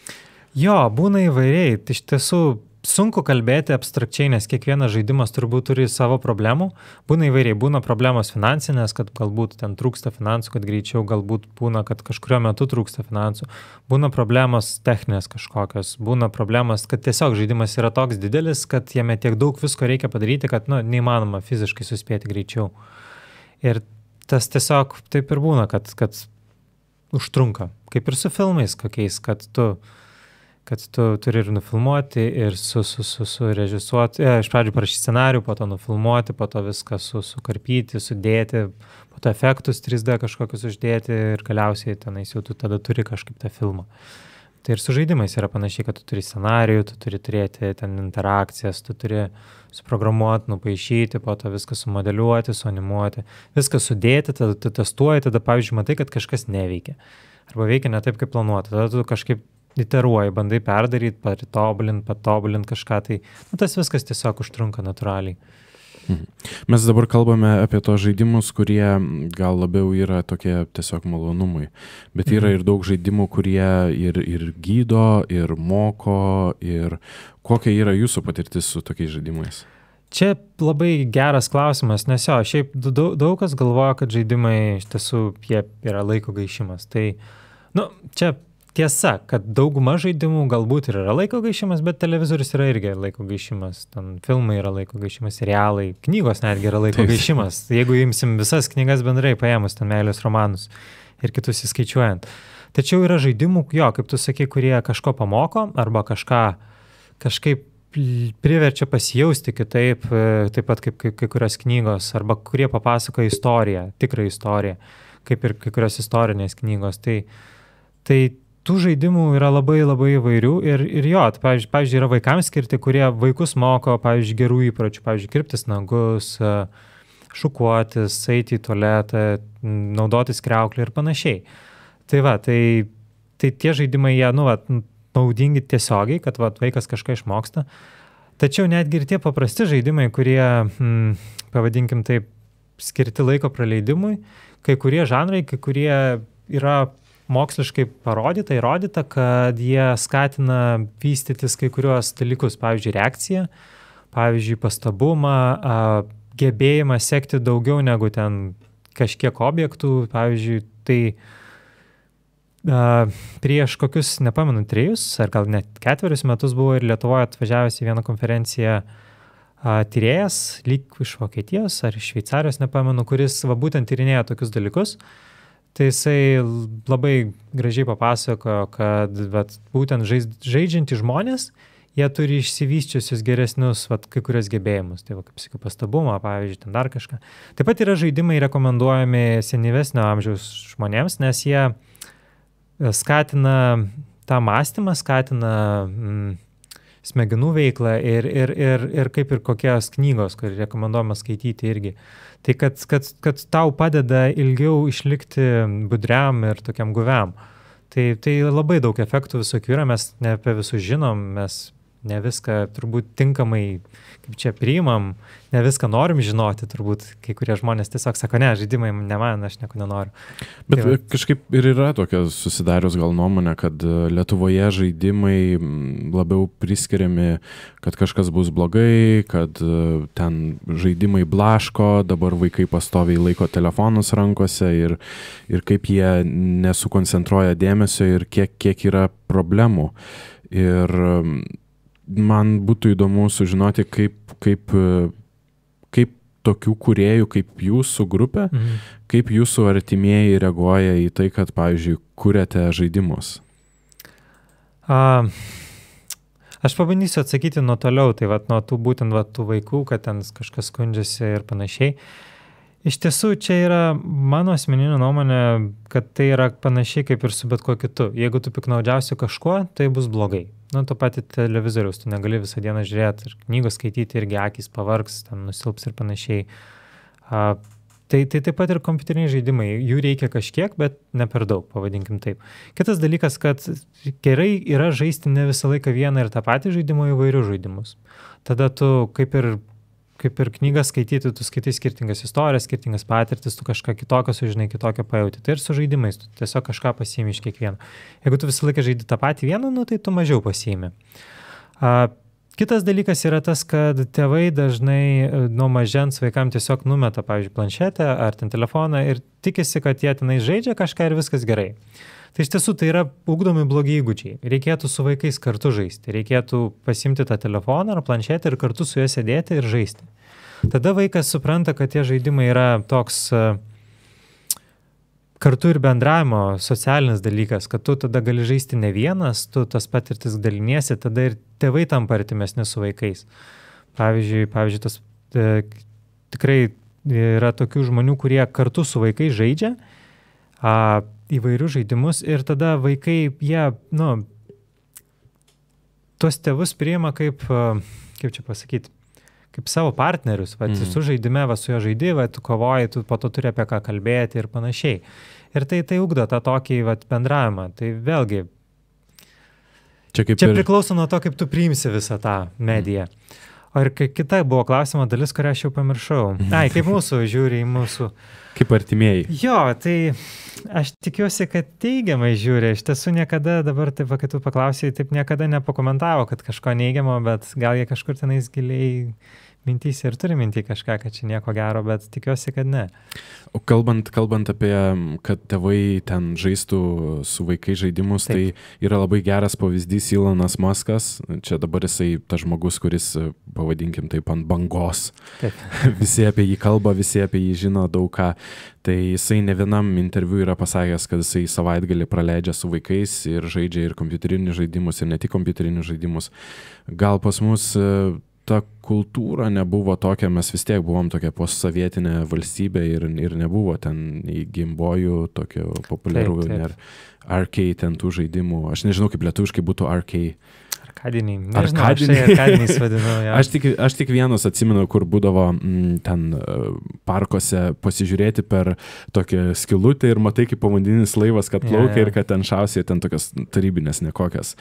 Jo, būna įvairiai. Iš tiesų sunku kalbėti abstrakčiai, nes kiekvienas žaidimas turbūt turi savo problemų. Būna įvairiai, būna problemos finansinės, kad galbūt ten trūksta finansų, kad greičiau, galbūt būna, kad kažkurio metu trūksta finansų. Būna problemos techninės kažkokios, būna problemos, kad tiesiog žaidimas yra toks didelis, kad jame tiek daug visko reikia padaryti, kad neįmanoma fiziškai suspėti greičiau. Ir tas tiesiog taip ir būna, kad užtrunka. Kaip ir su filmais kokiais, kad tu turi ir nufilmuoti, ir surežisuoti, iš pradžių parašyti scenarių, po to nufilmuoti, po to viską sukarpyti, sudėti, po to efektus 3D kažkokius uždėti ir galiausiai tenais jau tu tada turi kažkaip tą filmą. Tai ir su žaidimais yra panašiai, kad tu turi scenarijų, tu turi turėti ten interakcijas, tu turi suprogramuoti, nupaišyti, po to viską sumodeliuoti, suanimuoti, viską sudėti, tada tu testuoji, tada pavyzdžiui matai, kad kažkas neveikia. Arba veikia ne taip, kaip planuota, tada tu kažkaip iteruoji, bandai perdaryti, patobulint kažką, tai tas viskas tiesiog užtrunka natūraliai. Mes dabar kalbame apie tos žaidimus, kurie gal labiau yra tokie tiesiog malonumai, bet yra ir daug žaidimų, kurie ir gydo, ir moko, ir kokia yra jūsų patirtis su tokiais žaidimais? Čia labai geras klausimas, nes šiaip daug kas galvoja, kad žaidimai iš tiesų jie yra laiko gaišimas. Tai, čia tiesa, kad dauguma žaidimų galbūt ir yra laiko gaišimas, bet televizorius yra irgi laiko gaišimas, ten filmai yra laiko gaišimas, serialai, knygos netgi yra laiko gaišimas. Jeigu imsim visas knygas bendrai paėmus, ten meilės romanus ir kitus įskaičiuojant. Tačiau yra žaidimų, kaip tu sakai, kurie kažko pamoko arba kažkaip priverčia pasijausti kitaip, taip pat kaip kai kurios knygos, arba kurie papasakoja istoriją, tikrą istoriją, kaip ir kai kurios istorinės knygos. Tai tų žaidimų yra labai labai įvairių ir pavyzdžiui, yra vaikams skirti, kurie vaikus moko, pavyzdžiui, gerų įpročių, pavyzdžiui, kirptis nagus, šukuotis, eiti į tualetą, naudotis kriauklį ir panašiai. Tai tie žaidimai, jie, naudingi tiesiogiai, kad vaikas kažką išmoksta. Tačiau netgi ir tie paprasti žaidimai, kurie, pavadinkim taip, skirti laiko praleidimui, kai kurie žanrai, kai kurie yra moksliškai įrodyta, kad jie skatina vystytis kai kuriuos dalykus, pavyzdžiui, reakciją, pavyzdžiui, pastabumą, gebėjimą sekti daugiau negu ten kažkiek objektų, pavyzdžiui, tai prieš kokius, nepamenu, 3 ar gal net 4 metus buvo ir Lietuvoje atvažiavęs į vieną konferenciją tyrėjas, lyg iš Vokietijos ar iš Šveicarijos, nepamenu, kuris būtent tyrinėja tokius dalykus. Tai jisai labai gražiai papasakojo, kad būtent žaidžiantys žmonės, jie turi išsivysčiusius geresnius kai kurios gebėjimus. Tai kaip sakiau, pastabumą, pavyzdžiui, ten dar kažką. Taip pat yra žaidimai rekomenduojami senyvesnio amžiaus žmonėms, nes jie skatina tą mąstymą, skatina smegenų veiklą ir kaip ir kokios knygos, kur rekomenduojama skaityti irgi. Tai kad tau padeda ilgiau išlikti budriam ir tokiam guviam. Tai labai daug efektų visokių yra, mes ne apie visus žinom, mes ne viską turbūt tinkamai, kaip čia priimam, ne viską norim žinoti, turbūt kai kurie žmonės tiesiog sako, ne, žaidimai ne man, aš nieko nenoriu. Bet tai kažkaip ir yra tokia susidarius gal nuomonė, kad Lietuvoje žaidimai labiau priskiriami, kad kažkas bus blogai, kad ten žaidimai blaško, dabar vaikai pastoviai laiko telefonus rankose ir kaip jie nesukoncentruoja dėmesio ir kiek yra problemų. Ir man būtų įdomu sužinoti, kaip tokių kūrėjų, kaip jūsų grupė, kaip jūsų artimieji reaguoja į tai, kad, pavyzdžiui, kuriate žaidimus. Aš pabandysiu atsakyti nuo toliau, tai nuo tų būtent tų vaikų, kad ten kažkas skundžiasi ir panašiai. Iš tiesų, čia yra mano asmeninė nuomonė, kad tai yra panašiai kaip ir su bet kuo kitu. Jeigu tu piknaudžiausi kažkuo, tai bus blogai. To patį televizoriaus, tu negali visą dieną žiūrėti ir knygos skaityti, irgi akys pavargs, ten nusilps ir panašiai. Tai taip pat ir kompiuteriniai žaidimai. Jų reikia kažkiek, bet ne per daug, pavadinkim taip. Kitas dalykas, kad gerai yra žaisti ne visą laiką vieną ir tą patį žaidimą, įvairius žaidimus. Tada tu kaip ir knygas skaityti, tu skaitai skirtingas istorijas, skirtingas patirtis, tu kažką kitokio sužinai, kitokio pajauti. Tai ir su žaidimais, tu tiesiog kažką pasiimi iš kiekvieno. Jeigu tu visą laiką žaidi tą patį vieną, tai tu mažiau pasiimi. Kitas dalykas yra tas, kad tėvai dažnai nuo mažens vaikams tiesiog numeta, pavyzdžiui, planšetę ar ten telefoną ir tikisi, kad jie tenai žaidžia kažką ir viskas gerai. Tai iš tiesų tai yra ugdomi blogi įgūdžiai. Reikėtų su vaikais kartu žaisti. Reikėtų pasimti tą telefoną ar planšetę ir kartu su juo sėdėti ir žaisti. Tada vaikas supranta, kad tie žaidimai yra toks kartu ir bendravimo socialinis dalykas, kad tu tada gali žaisti ne vienas, tu tas patirtis daliniesi, tada ir tėvai tampa artimesni su vaikais. Pavyzdžiui, tas tikrai yra tokių žmonių, kurie kartu su vaikais žaidžia įvairius žaidimus ir tada vaikai, jie, tuos tėvus priima kaip čia pasakyti, kaip savo partnerius. Tu žaidime, su jo žaidi, tu kovoji, tu po to turi apie ką kalbėti ir panašiai. Ir tai ugdo tą tokį bendravimą. Tai vėlgi, čia priklauso nuo to, kaip tu priimsi visą tą mediją. O ir kita buvo klausimo dalis, kurią aš jau pamiršau. Kaip mūsų žiūri į mūsų. Kaip artimieji. Jo, tai aš tikiuosi, kad teigiamai žiūri. Iš tiesų niekada, dabar taip, kai tu paklausai, taip niekada nepakomentavo, kad kažko neigiamo, bet gal jie kažkur tenais giliai mintyse ir turi mintį kažką, kad čia nieko gero, bet tikiuosi, kad ne. O kalbant apie, kad tėvai ten žaistų su vaikai žaidimus, taip. Tai yra labai geras pavyzdys Elonas Muskas. Čia dabar jisai tas žmogus, kuris, pavadinkim taip, ant bangos. Taip. Visi apie jį kalba, visi apie jį žino daug ką. Tai jisai ne vienam interviu yra pasakęs, kad jisai savaitgalį praleidžia su vaikais ir žaidžia ir kompiuterinius žaidimus, ir ne tik kompiuterinius žaidimus. Gal pas mus ta kultūra nebuvo tokia, mes vis tiek buvom tokia postsovietinė valstybė ir nebuvo ten į Gameboyų tokio populiarų ir arcade ten tų žaidimų. Aš nežinau, kaip lietuviškai būtų arcade. Arkadiniai. Nežinau, arkadiniais vadinu. Ja. Aš tik vienus atsimenu, kur būdavo ten parkuose pasižiūrėti per tokią skylutę ir matai, kaip povandeninis laivas, kad plaukia ir kad ten šausia ten tokias tarybinės nekokias.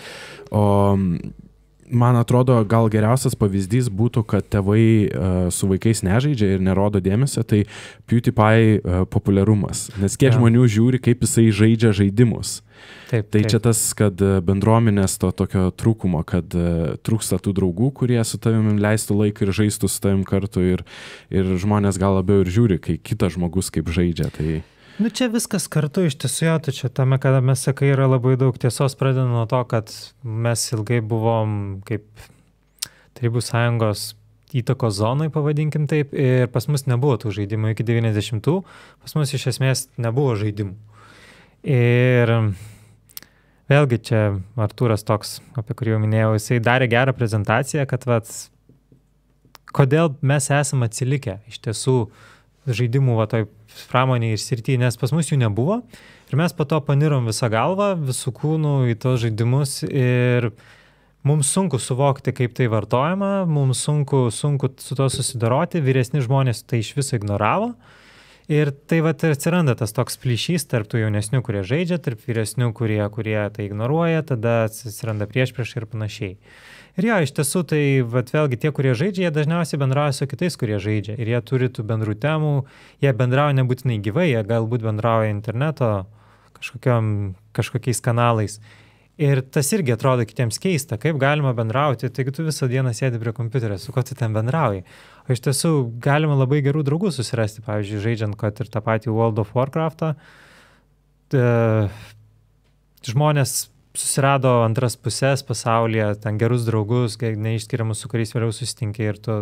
O man atrodo, gal geriausias pavyzdys būtų, kad tėvai su vaikais nežaidžia ir nerodo dėmesio, tai PewDiePie populiarumas. Nes kiek žmonių žiūri, kaip jisai žaidžia žaidimus. Taip. Čia tas, kad bendruomenės to tokio trūkumo, kad trūksta tų draugų, kurie su tavimi leistų laiką ir žaistų su tavim kartu ir žmonės gal labiau ir žiūri, kai kitas žmogus kaip žaidžia. Tai čia viskas kartu iš tiesų, tačiau tame, kada mes sakai, yra labai daug tiesos, pradedant nuo to, kad mes ilgai buvom kaip Tarybų Sąjungos įtakos zonai, pavadinkim taip, ir pas mus nebuvo tų žaidimų iki 90-ų, pas mus iš esmės nebuvo žaidimų. Ir vėlgi čia Artūras toks, apie kurį jau minėjau, jisai darė gerą prezentaciją, kad kodėl mes esame atsilikę iš tiesų žaidimų toj pramonėje ir srityje, nes pas mus jų nebuvo ir mes po to panirom visą galvą, visų kūnų į tos žaidimus ir mums sunku suvokti, kaip tai vartojama, mums sunku su to susidoroti, vyresni žmonės tai iš viso ignoravo ir tai atsiranda tas toks plyšys tarp tų jaunesnių, kurie žaidžia, tarp vyresnių, kurie tai ignoruoja, tada atsiranda priešpriešai ir panašiai. Ir jo, iš tiesų, tai vat, vėlgi tie, kurie žaidžia, jie dažniausiai bendrauja su kitais, kurie žaidžia. Ir jie turi tų bendrų temų, jie bendrauja nebūtinai gyvai, jie galbūt bendrauja interneto kažkokiais kanalais. Ir tas irgi atrodo kitiems keista, kaip galima bendrauti, taigi tu visą dieną sėdi prie kompiuterio, su kuo tu ten bendrauji. O iš tiesų galima labai gerų draugų susirasti, pavyzdžiui, žaidžiant, kad ir tą patį World of Warcraft'ą. Žmonės susirado antras pusės pasaulyje, ten gerus draugus, neišskiriamus, su kuriais vėliau susitinki ir tu,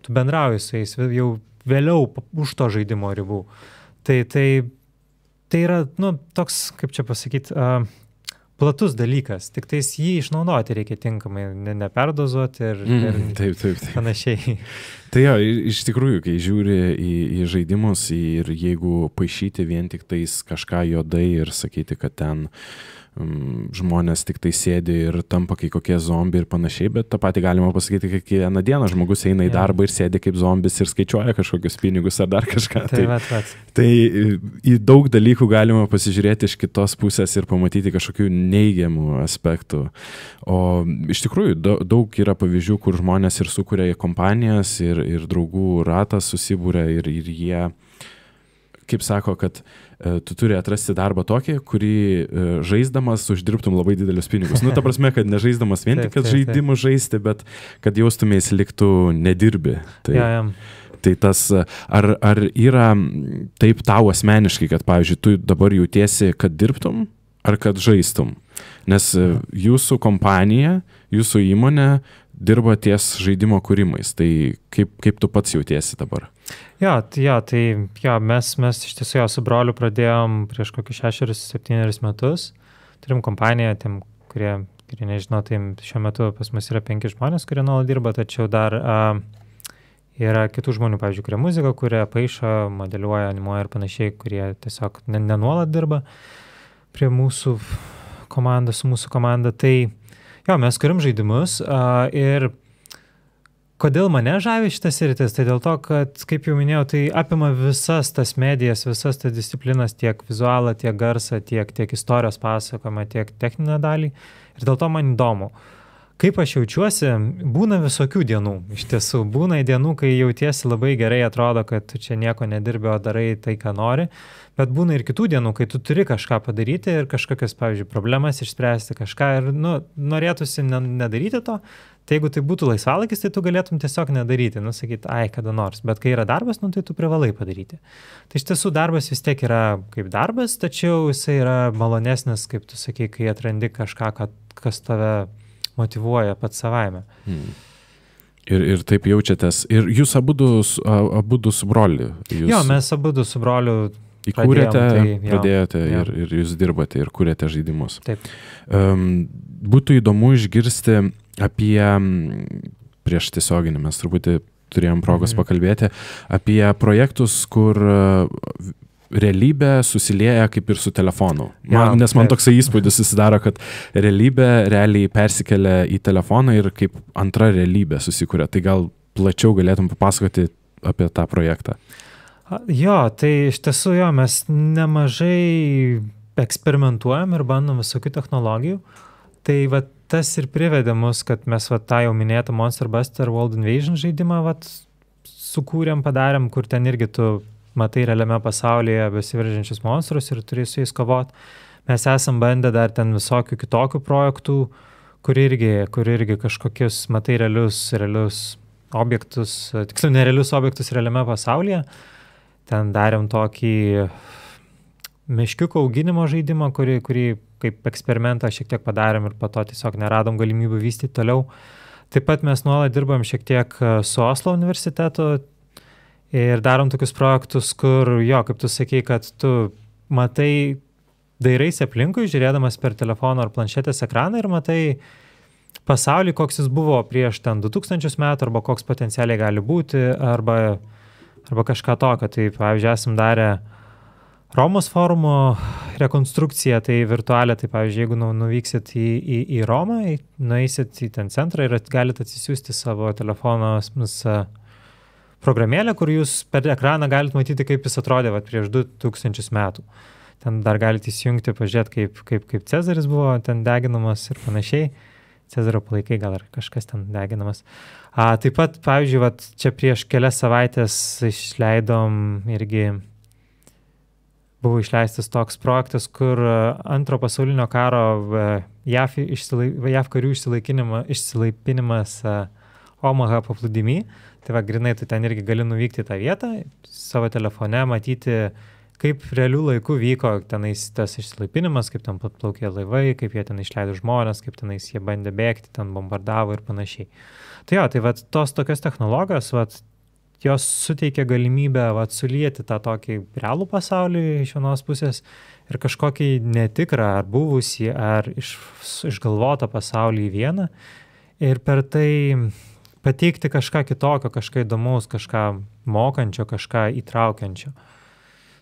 tu bendrauji su jais jau vėliau už to žaidimo ribų. Tai yra, toks, kaip čia pasakyti, platus dalykas, tik tais jį išnaudoti reikia tinkamai, neperdozuoti ir taip. Panašiai. Tai jo, iš tikrųjų, kai žiūri į žaidimus ir jeigu paišyti vien tik tais kažką juodai ir sakyti, kad ten žmonės tik tai sėdi ir tampa kai kokie zombiai ir panašiai, bet tą patį galima pasakyti, kad kiekvieną dieną žmogus eina į darbą ir sėdi kaip zombis ir skaičiuoja kažkokius pinigus ar dar kažką. Tai į daug dalykų galima pasižiūrėti iš kitos pusės ir pamatyti kažkokių neigiamų aspektų. O iš tikrųjų daug yra pavyzdžių, kur žmonės ir sukuria kompanijas ir draugų ratas susibūrė ir jie, kaip sako, kad tu turi atrasti darbą tokį, kurį žaisdamas uždirbtum labai didelius pinigus. Ta prasme, kad nežaisdamas vien tik, kad žaidimus žaisti, bet kad jaustumės liktų nedirbi. Tai tas, ar yra taip tau asmeniškai, kad, pavyzdžiui, tu dabar jautiesi, kad dirbtum, ar kad žaistum? Nes jūsų kompanija, jūsų įmonė dirba ties žaidimo kūrimais. Tai kaip tu pats jautiesi dabar? Mes iš tiesų su broliu pradėjom prieš kokius 6-7 metus. Turim kompaniją, tiem, kurie nežino, tai šiuo metu pas mus yra 5 žmonės, kurie nuolat dirba, tačiau dar yra kitų žmonių, pavyzdžiui, kurie muziką, kurie paišo, modeliuoja, animuoja ir panašiai, kurie tiesiog nenuolat dirba prie mūsų komandos, su mūsų komanda. Tai mes kuriam žaidimus ir kodėl mane žavi šitas sritis, tai dėl to, kad, kaip jau minėjau, tai apima visas tas medijas, visas tas disciplinas, tiek vizualą, tiek garsą, tiek istorijos pasakojimą, tiek techninę dalį. Ir dėl to man įdomu. Kaip aš jaučiuosi, būna visokių dienų. Iš tiesų, būna dienų, kai jautiesi labai gerai, atrodo, kad tu čia nieko nedirbi, o darai tai, ką nori. Bet būna ir kitų dienų, kai tu turi kažką padaryti ir kažkokias, pavyzdžiui, problemas išspręsti kažką ir norėtųsi nedaryti to. Tai jeigu tai būtų laisvalaikis, tai tu galėtum tiesiog nedaryti, sakyti, kada nors. Bet kai yra darbas, tai tu privalai padaryti. Tai iš tiesų darbas vis tiek yra kaip darbas, tačiau jisai yra malonesnis, kaip tu sakai, kai atrandi kažką, kas tave motyvuoja pats savaime. Ir taip jaučiatės. Ir jūs abudu su broliu. Jo, mes abudu su broliu įkūrėte, pradėjote ir jūs dirbate ir kūrėte žaidimus. Taip. Būtų įdomu išgirsti apie, prieš tiesioginį mes truputį turėjom progos pakalbėti, apie projektus, kur realybė susilieja kaip ir su telefonu. Nes man toksai įspūdis susidaro, kad realybė realiai persikelia į telefoną ir kaip antra realybė susikuria. Tai gal plačiau galėtum papasakoti apie tą projektą? Tai iš tiesų mes nemažai eksperimentuojam ir bandom visokių technologijų. Tai tas ir privedė mus, kad mes tą jau minėtą Monster Buster World Invasion žaidimą sukūrėm, padarėm, kur ten irgi tu matai realiame pasaulyje besiveržiančius monstrus ir turi su jais kovoti. Mes esam bandę dar ten visokių kitokių projektų, kur irgi kažkokius matai realius objektus, tiksliau nerealius objektus realiame pasaulyje. Ten darėm tokį meškiuko auginimo žaidimą, kurį kaip eksperimentą šiek tiek padarėm ir po to tiesiog neradom galimybių vystyti toliau. Taip pat mes nuolat dirbam šiek tiek su Oslo universitetu ir darom tokius projektus, kur, kaip tu sakei, kad tu matai, dairaisi aplinkui, žiūrėdamas per telefono ar planšetės ekraną ir matai pasaulį, koks jis buvo prieš ten 2000 metų, arba koks potencialiai gali būti, arba kažką tokio. Tai, pavyzdžiui, esam darę Romos forumo rekonstrukciją, tai virtualią, tai, pavyzdžiui, jeigu nuvyksit į Romą, nueisit į ten centrą ir galite atsisiųsti savo telefono programėlę, kur jūs per ekraną galite matyti, kaip jis atrodė prieš 2000 metų. Ten dar galite įsijungti, pažiūrėti, kaip Cezaris buvo ten deginamas ir panašiai. Cezario palaikai gal ar kažkas ten deginamas. Taip pat, pavyzdžiui, vat, čia prieš kelias savaitės buvo išleistas toks projektas, kur antro pasaulinio karo JAV karių išsilaipinimas Omaha paplūdimy. Tai va, grinai, tu ten irgi gali nuvykti į tą vietą, savo telefone matyti, kaip realių laikų vyko tenais tas išsilaipinimas, kaip ten plaukė laivai, kaip jie ten išleido žmonės, kaip tenais jie bandė bėgti, ten bombardavo ir panašiai. Tai jo, tai va, tos tokios technologijos, va, jos suteikia galimybę va, sulieti tą tokį realų pasaulį iš vienos pusės ir kažkokį netikrą, ar buvusį, ar išgalvotą pasaulį į vieną ir per tai pateikti kažką kitokio, kažką įdomaus, kažką mokančio, kažką įtraukiančio.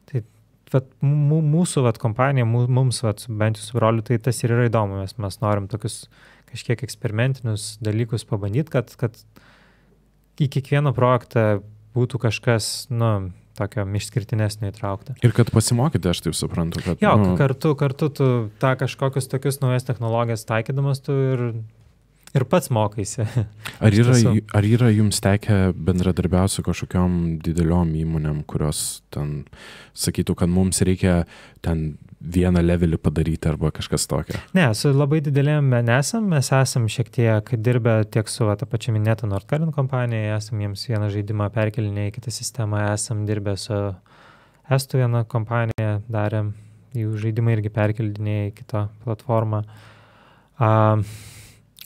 Tai vat, mūsų vat, kompanija, mums vat, bent jau su broliu, tai tas ir yra įdomu, mes norim tokius kažkiek eksperimentinius dalykus pabandyti, kad į kiekvieną projektą būtų kažkas, tokio išskirtinesnio įtraukta. Ir kad pasimokyti, aš taip suprantu, kad... Jo, kartu tu tą kažkokius tokius naujas technologijas taikydamas tu ir pats mokaisi. Ar yra jums tekę bendradarbiauti su kažkokiom dideliom įmonėm, kurios ten sakytų, kad mums reikia ten vieną levelį padaryti arba kažkas tokio? Ne, su labai didelėm nesam, mes esam šiek tiek dirbę tiek su tą pačią minėtą Nordkalin kompanija, esam jiems vieną žaidimą perkelinę į kitą sistemą, esam dirbę su Estų vieną kompaniją, darėm jų žaidimą irgi perkeldinėję į kitą platformą.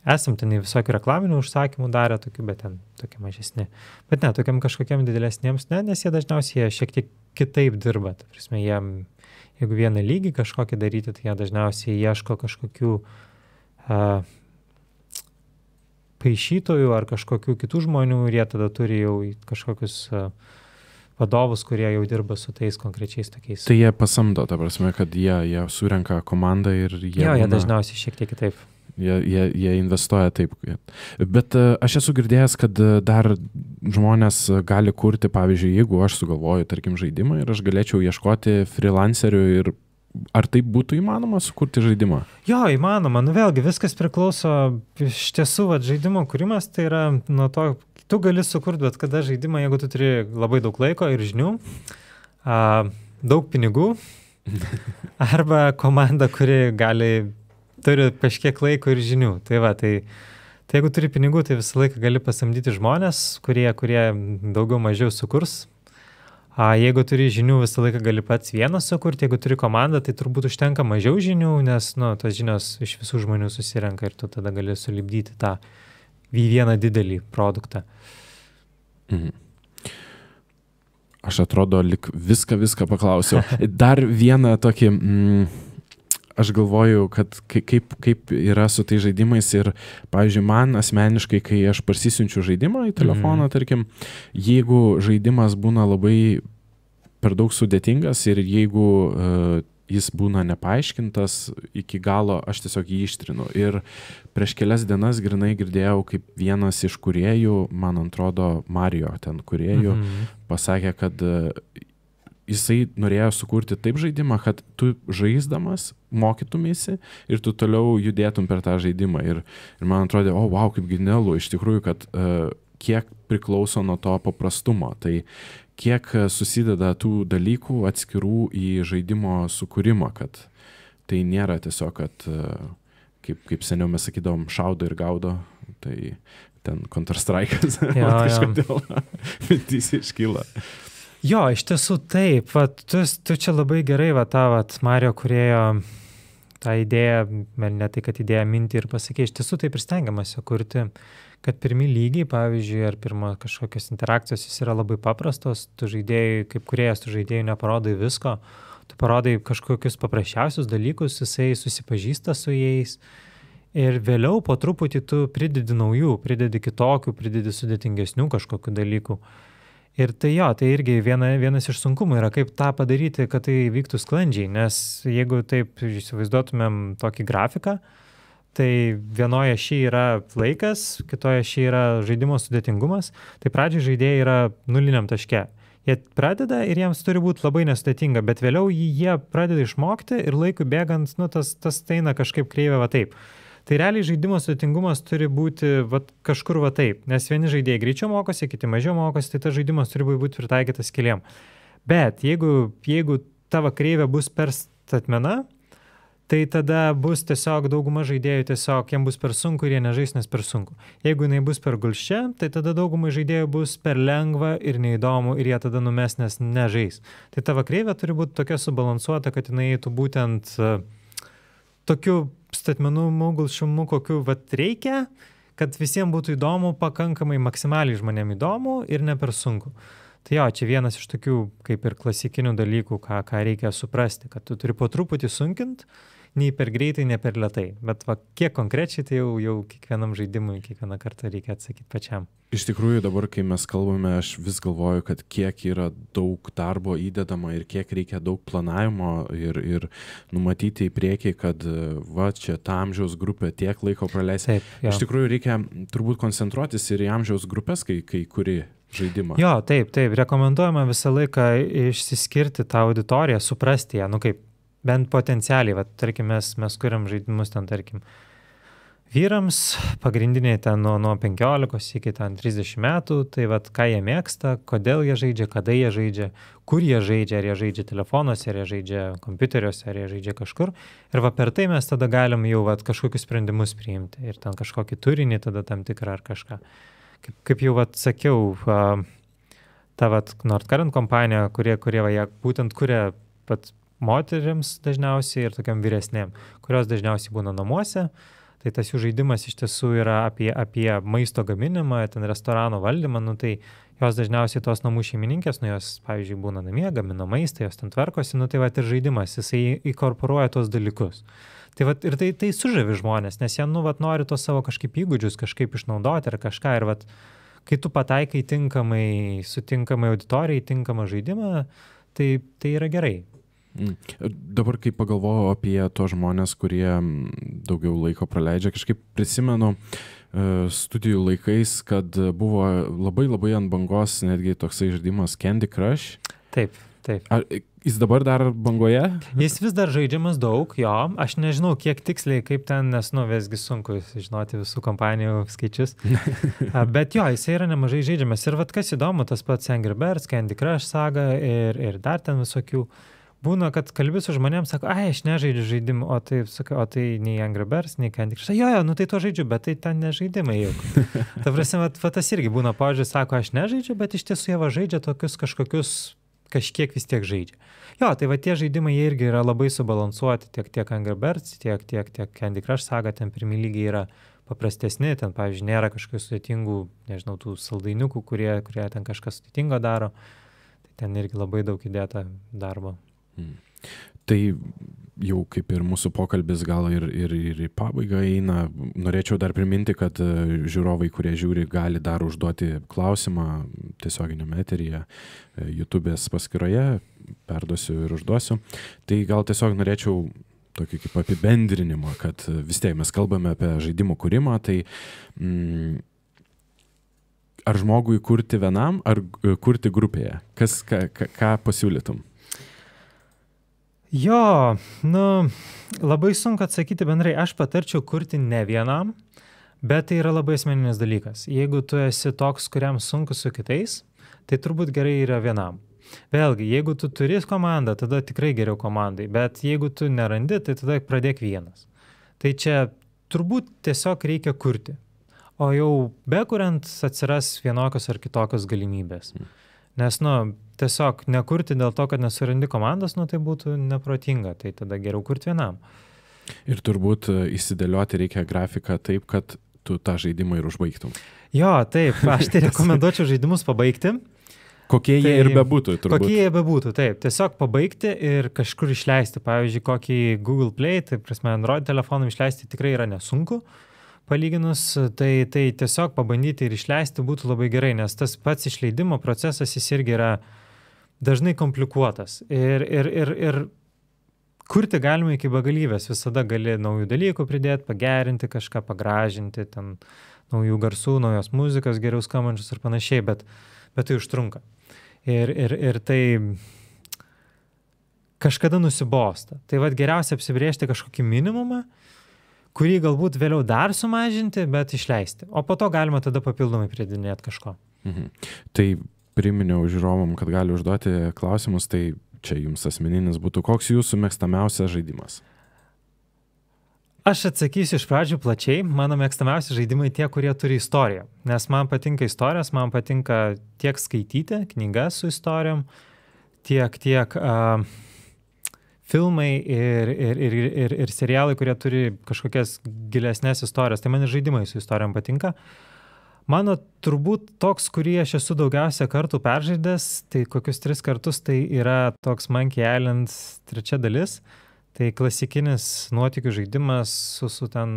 Esam ten į visokių reklaminių užsakymų darę tokių, bet ten tokie mažesni. Bet ne, tokiam kažkokiam didesniems, ne, nes jie dažniausiai šiek tiek kitaip dirba. Ta prasme, jeigu vieną lygį kažkokį daryti, tai jie dažniausiai ieško kažkokių paišytojų ar kažkokių kitų žmonių ir jie tada turi jau kažkokius vadovus, kurie jau dirba su tais konkrečiais tokiais. Tai jie pasamdo, ta prasme, kad jie surenka komandą ir jie... Jo, jie dažniausiai šiek tiek kitaip. Jie investuoja taip. Bet aš esu girdėjęs, kad dar žmonės gali kurti, pavyzdžiui, jeigu aš sugalvoju, tarkim, žaidimą ir aš galėčiau ieškoti freelancerių ir ar taip būtų įmanoma sukurti žaidimą? Jo, įmanoma. Vėlgi, viskas priklauso, iš tiesų, žaidimo kūrimas tai yra nuo to, tu gali sukurti bet kada žaidimą, jeigu tu turi labai daug laiko ir žinių, daug pinigų, arba komanda, kuri turi kažkiek laiko ir žinių. Tai jeigu turi pinigų, tai visą laiką gali pasamdyti žmonės, kurie daugiau mažiau sukurs. Jeigu turi žinių, visą laiką gali pats vienas sukurti. Jeigu turi komandą, tai turbūt užtenka mažiau žinių, nes tos žinios iš visų žmonių susirenka ir tu tada gali sulipdyti tą vieną didelį produktą. Mhm. Aš atrodo, lik viską paklausiau. Dar vieną tokį... Aš galvoju, kad kaip yra su tai žaidimais ir, pavyzdžiui, man asmeniškai, kai aš parsisiunčiu žaidimą į telefoną, tarkim, jeigu žaidimas būna labai per daug sudėtingas ir jeigu jis būna nepaaiškintas iki galo, aš tiesiog jį ištrinu. Ir prieš kelias dienas grinai girdėjau, kaip vienas iš kūrėjų, man atrodo, Mario ten kūrėjų, pasakė, kad jisai norėjo sukurti taip žaidimą, kad tu žaisdamas mokytumėsi ir tu toliau judėtum per tą žaidimą. Ir man atrodė, wow, kaip genialu, iš tikrųjų, kad kiek priklauso nuo to paprastumo. Tai kiek susideda tų dalykų atskirų į žaidimo sukūrimą, kad tai nėra tiesiog, kad kaip seniau mes sakydavom, šaudo ir gaudo, tai ten Counter-Strike'as, kažkodėl mintys iškyla. Jo, iš tiesų taip, tu čia labai gerai tą Mario kūrėjo tą idėją, ne tai, kad idėją mintį ir pasakė, iš tiesų taip ir stengiamasi kurti, kad pirmi lygiai, pavyzdžiui, ar pirma kažkokios interakcijos jis yra labai paprastos, tu žaidėjai, kaip kūrėjas, tu žaidėjai neparodai visko, tu parodai kažkokius paprasčiausius dalykus, jisai susipažįsta su jais ir vėliau po truputį tu pridedi naujų, pridedi kitokių, pridedi sudėtingesnių kažkokių dalykų. Ir tai irgi vienas iš sunkumų yra, kaip tą padaryti, kad tai vyktų sklandžiai, nes jeigu taip įsivaizduotumėm tokį grafiką, tai vienoje ašy yra laikas, kitoje ašy yra žaidimo sudėtingumas, tai pradžiai žaidėjai yra nuliniam taške. Jie pradeda ir jiems turi būti labai nesudėtinga, bet vėliau jie pradeda išmokti ir laikui bėgant, tas eina kažkaip kreivė va taip. Tai realiai žaidimo sudėtingumas turi būti kažkur taip, nes vieni žaidėjai greičiau mokosi, kiti mažiau mokosi, tai tas žaidimas turi būti pritaikytas keliam. Bet jeigu tavo kreivė bus per statmena, tai tada bus tiesiog dauguma žaidėjų tiesiog, jiems bus per sunku ir jie nežais, nes per sunku. Jeigu jinai bus per gulščia, tai tada daugumai žaidėjų bus per lengva ir neįdomu ir jie tada numes, nes nežais. Tai tavo kreivė turi būti tokia subalansuota, kad jinai eitų būtent tokiu statmenų gulščiumu, kokiu reikia, kad visiems būtų įdomu, pakankamai maksimaliai žmonėms įdomu ir ne per sunku. Tai jo, čia vienas iš tokių kaip ir klasikinių dalykų, ką reikia suprasti, kad tu turi po truputį sunkinti, nei per greitai, nei per lėtai. Bet kiek konkrečiai, tai jau kiekvienam žaidimui, kiekvieną kartą reikia atsakyti pačiam. Iš tikrųjų, dabar, kai mes kalbame, aš vis galvoju, kad kiek yra daug darbo įdedama ir kiek reikia daug planavimo ir numatyti į priekį, kad čia ta amžiaus grupė tiek laiko praleis. Iš tikrųjų, reikia turbūt koncentruotis ir į amžiaus grupės, kai kuri žaidimą. Jo, taip, rekomenduojama visą laiką išsiskirti tą auditoriją, suprasti ją, kaip bent potencialiai, tarkim, mes kuriam žaidimus ten, tarkim, vyrams, pagrindiniai ten nuo 15 iki 30 metų, tai ką jie mėgsta, kodėl jie žaidžia, kada jie žaidžia, kur jie žaidžia, ar jie žaidžia telefonuose, ar jie žaidžia kompiuteriuose, ar jie žaidžia kažkur. Ir per tai mes tada galim jau kažkokius sprendimus priimti ir ten kažkokį turinį tada tam tikrą ar kažką. Kaip jau sakiau, ta Nordcurrent kompanija, kurie būtent kuria moterims dažniausiai ir tokiam vyresnėm, kurios dažniausiai būna namuose, tai tas jų žaidimas iš tiesų yra apie maisto gaminimą, ten restorano valdymą, tai jos dažniausiai tos namų šeimininkės, jos, pavyzdžiui, būna namie, gamina maistą, jos ten tvarkosi, tai ir žaidimas, jisai inkorporuoja tos dalykus. Tai ir tai sužavi žmonės, nes jie, nori tos savo kažkaip įgūdžius kažkaip išnaudoti ar kažką ir kai tu pataikai tinkamai, sutinkamai auditorijai, tinkamą žaidimą, tai yra gerai. Dabar, kai pagalvojau apie tos žmonės, kurie daugiau laiko praleidžia, kažkaip prisimenu studijų laikais, kad buvo labai ant bangos netgi toksai žaidimas Candy Crush. Taip. Ar jis dabar dar bangoje? Jis vis dar žaidžiamas daug, jo. Aš nežinau, kiek tiksliai, kaip ten, nes, visgi sunku žinoti visų kompanijų skaičius. Bet jo, jis yra nemažai žaidžiamas. Ir kas įdomu, tas pats Angry Birds, Candy Crush saga ir dar ten visokių. Būna, kad kalbi su žmonėms, sako, aš nežaidžiu žaidimų, o tai nei Angry Birds, nei Candy Crush. Jo, tai to žaidžiu, bet tai ten nežaidimai juk. Ta prasme, tas irgi būna požiūris, sako, aš nežaidžiu, bet iš tiesų jie žaidžia tokius kažkokius, kažkiek vis tiek žaidžia. Jo, tai tie žaidimai jie irgi yra labai subalansuoti, tiek Angry Birds, tiek Candy Crush saga, ten pirmi lygiai yra paprastesni, ten, pavyzdžiui, nėra kažkokių sudėtingų, nežinau, tų saldainiukų, kurie ten kažkas sudėtingo daro. Tai ten irgi labai daug įdėta darbo. Tai jau kaip ir mūsų pokalbis gal ir į pabaigą eina. Norėčiau dar priminti, kad žiūrovai, kurie žiūri, gali dar užduoti klausimą tiesioginiame eteryje, YouTube'ės paskyroje, perduosiu ir užduosiu. Tai gal tiesiog norėčiau tokį kaip apibendrinimą, kad vis tiek mes kalbame apie žaidimų kūrimą, tai ar žmogui kurti vienam, ar kurti grupėje? Ką pasiūlytum? Jo, labai sunku atsakyti bendrai. Aš patarčiau kurti ne vienam, bet tai yra labai asmeninis dalykas. Jeigu tu esi toks, kuriam sunku su kitais, tai turbūt gerai yra vienam. Vėlgi, jeigu tu turi komandą, tada tikrai geriau komandai, bet jeigu tu nerandi, tai tada pradėk vienas. Tai čia turbūt tiesiog reikia kurti, o jau bekuriant atsiras vienokios ar kitokios galimybės. Nes, tiesiog nekurti dėl to, kad nesurandi komandos, tai būtų neprotinga, tai tada geriau kurti vienam. Ir turbūt įsidėlioti reikia grafiką taip, kad tu tą žaidimą ir užbaigtum. Jo, taip, aš tai rekomenduočiau žaidimus pabaigti. Kokie jie ir bebūtų, turbūt. Kokie jie bebūtų, taip. Tiesiog pabaigti ir kažkur išleisti. Pavyzdžiui, kokį Google Play, tai prasme Android telefonų išleisti tikrai yra nesunku. Palyginus, tai tiesiog pabandyti ir išleisti būtų labai gerai, nes tas pats išleidimo procesas jis irgi yra dažnai komplikuotas. Ir kurti galima iki begalybės, visada gali naujų dalykų pridėti, pagerinti kažką, pagražinti, ten naujų garsų, naujos muzikos, geriau skambančius ir panašiai, bet tai užtrunka. Ir tai kažkada nusibosta. Tai geriausia apsibrėžti kažkokį minimumą, kurį galbūt vėliau dar sumažinti, bet išleisti. O po to galima tada papildomai pridėti kažko. Tai priminiau žiūrovom, kad gali užduoti klausimus, tai čia jums asmeninis būtų. Koks jūsų mėgstamiausias žaidimas? Aš atsakysiu iš pradžių plačiai. Mano mėgstamiausi žaidimai tie, kurie turi istoriją. Nes man patinka istorijos, man patinka tiek skaityti knygas su istorijom, tiek filmai ir serialai, kurie turi kažkokias gilesnės istorijas. Tai man ir žaidimai su istorijom patinka. Mano turbūt toks, kurį aš esu daugiausia kartų peržaidęs, tai kokius 3 kartus, tai yra toks Monkey Island 3 dalis. Tai klasikinis nuotykių žaidimas su ten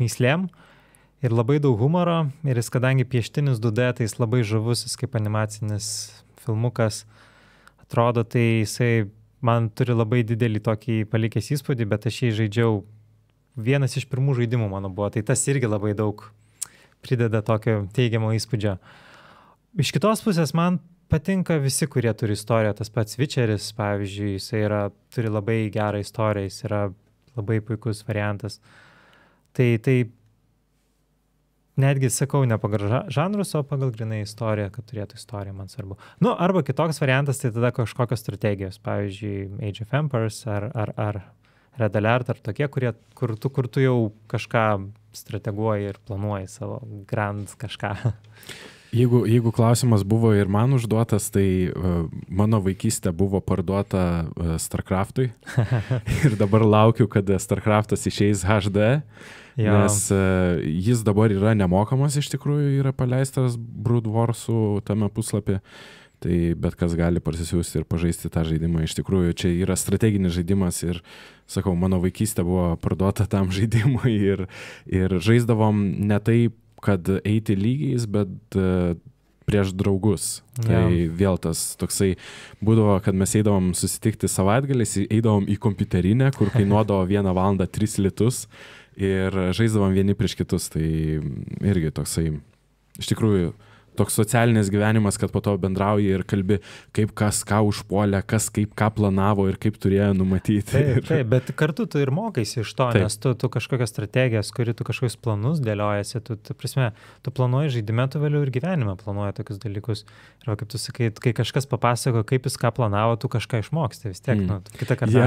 myslėm ir labai daug humoro. Ir jis, kadangi pieštinis 2D, tai jis labai žavus, jis kaip animacinis filmukas atrodo, tai jisai man turi labai didelį tokį palikęs įspūdį, bet aš jį žaidžiau, vienas iš pirmų žaidimų mano buvo, tai tas irgi labai daug prideda tokio teigiamo įspūdžio. Iš kitos pusės man patinka visi, kurie turi istoriją. Tas pats Witcheris, pavyzdžiui, jisai turi labai gerą istoriją, jis yra labai puikus variantas. Tai netgi sakau, ne pagal žanrus, o pagal grinai istoriją, kad turėtų istoriją, man svarbu. Nu, arba kitoks variantas, tai tada kažkokios strategijos, pavyzdžiui, Age of Empires ar Red Alert, ar tokie, kur tu jau kažką strateguoji ir planuoji savo grand kažką. Jeigu klausimas buvo ir man užduotas, tai mano vaikystė buvo parduota StarCraft'ui ir dabar laukiu, kad StarCraft'as išeis HD, nes jis dabar yra nemokamas, iš tikrųjų yra paleistas Brood Wars'ų tame puslapį, tai bet kas gali parsisiųsti ir pažaisti tą žaidimą. Iš tikrųjų, čia yra strateginis žaidimas ir, sakau, mano vaikystė buvo parduota tam žaidimui ir žaisdavom ne taip, kad eiti lygiais, bet prieš draugus. Tai vėl tas toksai būdavo, kad mes eidavom susitikti savaitgaliais, eidavom į kompiuterinę, kur kainuodavo 1 valandą 3 litus ir žaisdavom vieni prieš kitus. Tai irgi toksai, iš tikrųjų, toks socialinis gyvenimas, kad po to bendrauji ir kalbi, kaip kas ką užpuolė, kas kaip ką planavo ir kaip turėjo numatyti. Taip, bet kartu tu ir mokaisi iš to, nes tu kažkokias strategijas, tu kažkokius planus dėliojasi, tu planuoji žaidime, tu vėliau ir gyvenime planuoji tokius dalykus. Ir kaip tu sakai, kai kažkas papasako, kaip jis ką planavo, tu kažką išmoksti vis tiek, kitą kartą.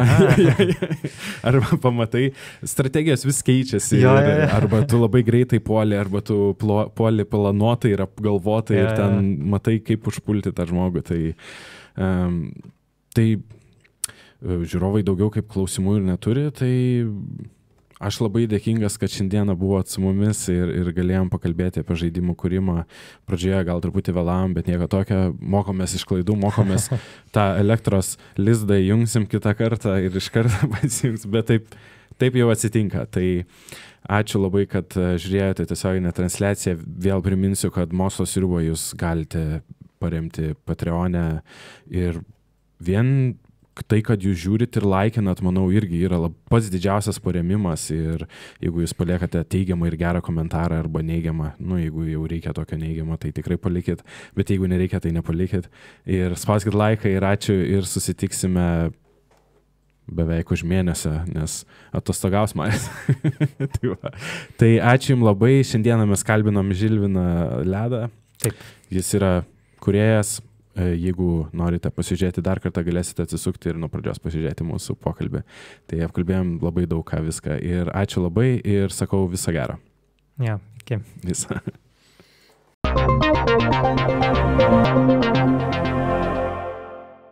Arba pamatai, strategijos vis keičiasi, arba tu labai greitai puoli, arba tu puoli planuotai ir apgalvotai. Ir ten matai, kaip užpulti tą žmogų. Tai žiūrovai daugiau kaip klausimų ir neturi, tai aš labai dėkingas, kad šiandieną buvot su mumis ir galėjom pakalbėti apie žaidimų kūrimą. Pradžioje gal truputį vėlavom, bet nieko tokio, mokomės iš klaidų, mokomės tą elektros lizdą įjungsim kitą kartą ir iš karto pasijungs, bet taip jau atsitinka. Tai ačiū labai, kad žiūrėjote tiesioginę transliaciją. Vėl priminsiu, kad Mokslo sriubą jūs galite paremti Patreon'e ir vien tai, kad jūs žiūrit ir laikinat, manau, irgi yra pats didžiausias paremimas ir jeigu jūs paliekate teigiamą ir gerą komentarą arba neigiamą, jeigu jau reikia tokio neigiamą, tai tikrai palikit, bet jeigu nereikia, tai nepalikit. Ir spauskit laiką ir ačiū ir susitiksime beveik už mėnesio, nes atostogaus manęs. Tai ačiū jums labai. Šiandieną mes kalbinom Žilviną Ledą. Taip. Jis yra kūrėjas. Jeigu norite pasižiūrėti dar kartą, galėsite atsisukti ir nuo pradžios pasižiūrėti mūsų pokalbį. Tai apkalbėjom labai daug ką viską. Ir ačiū labai ir sakau viso gero. Iki. Visą.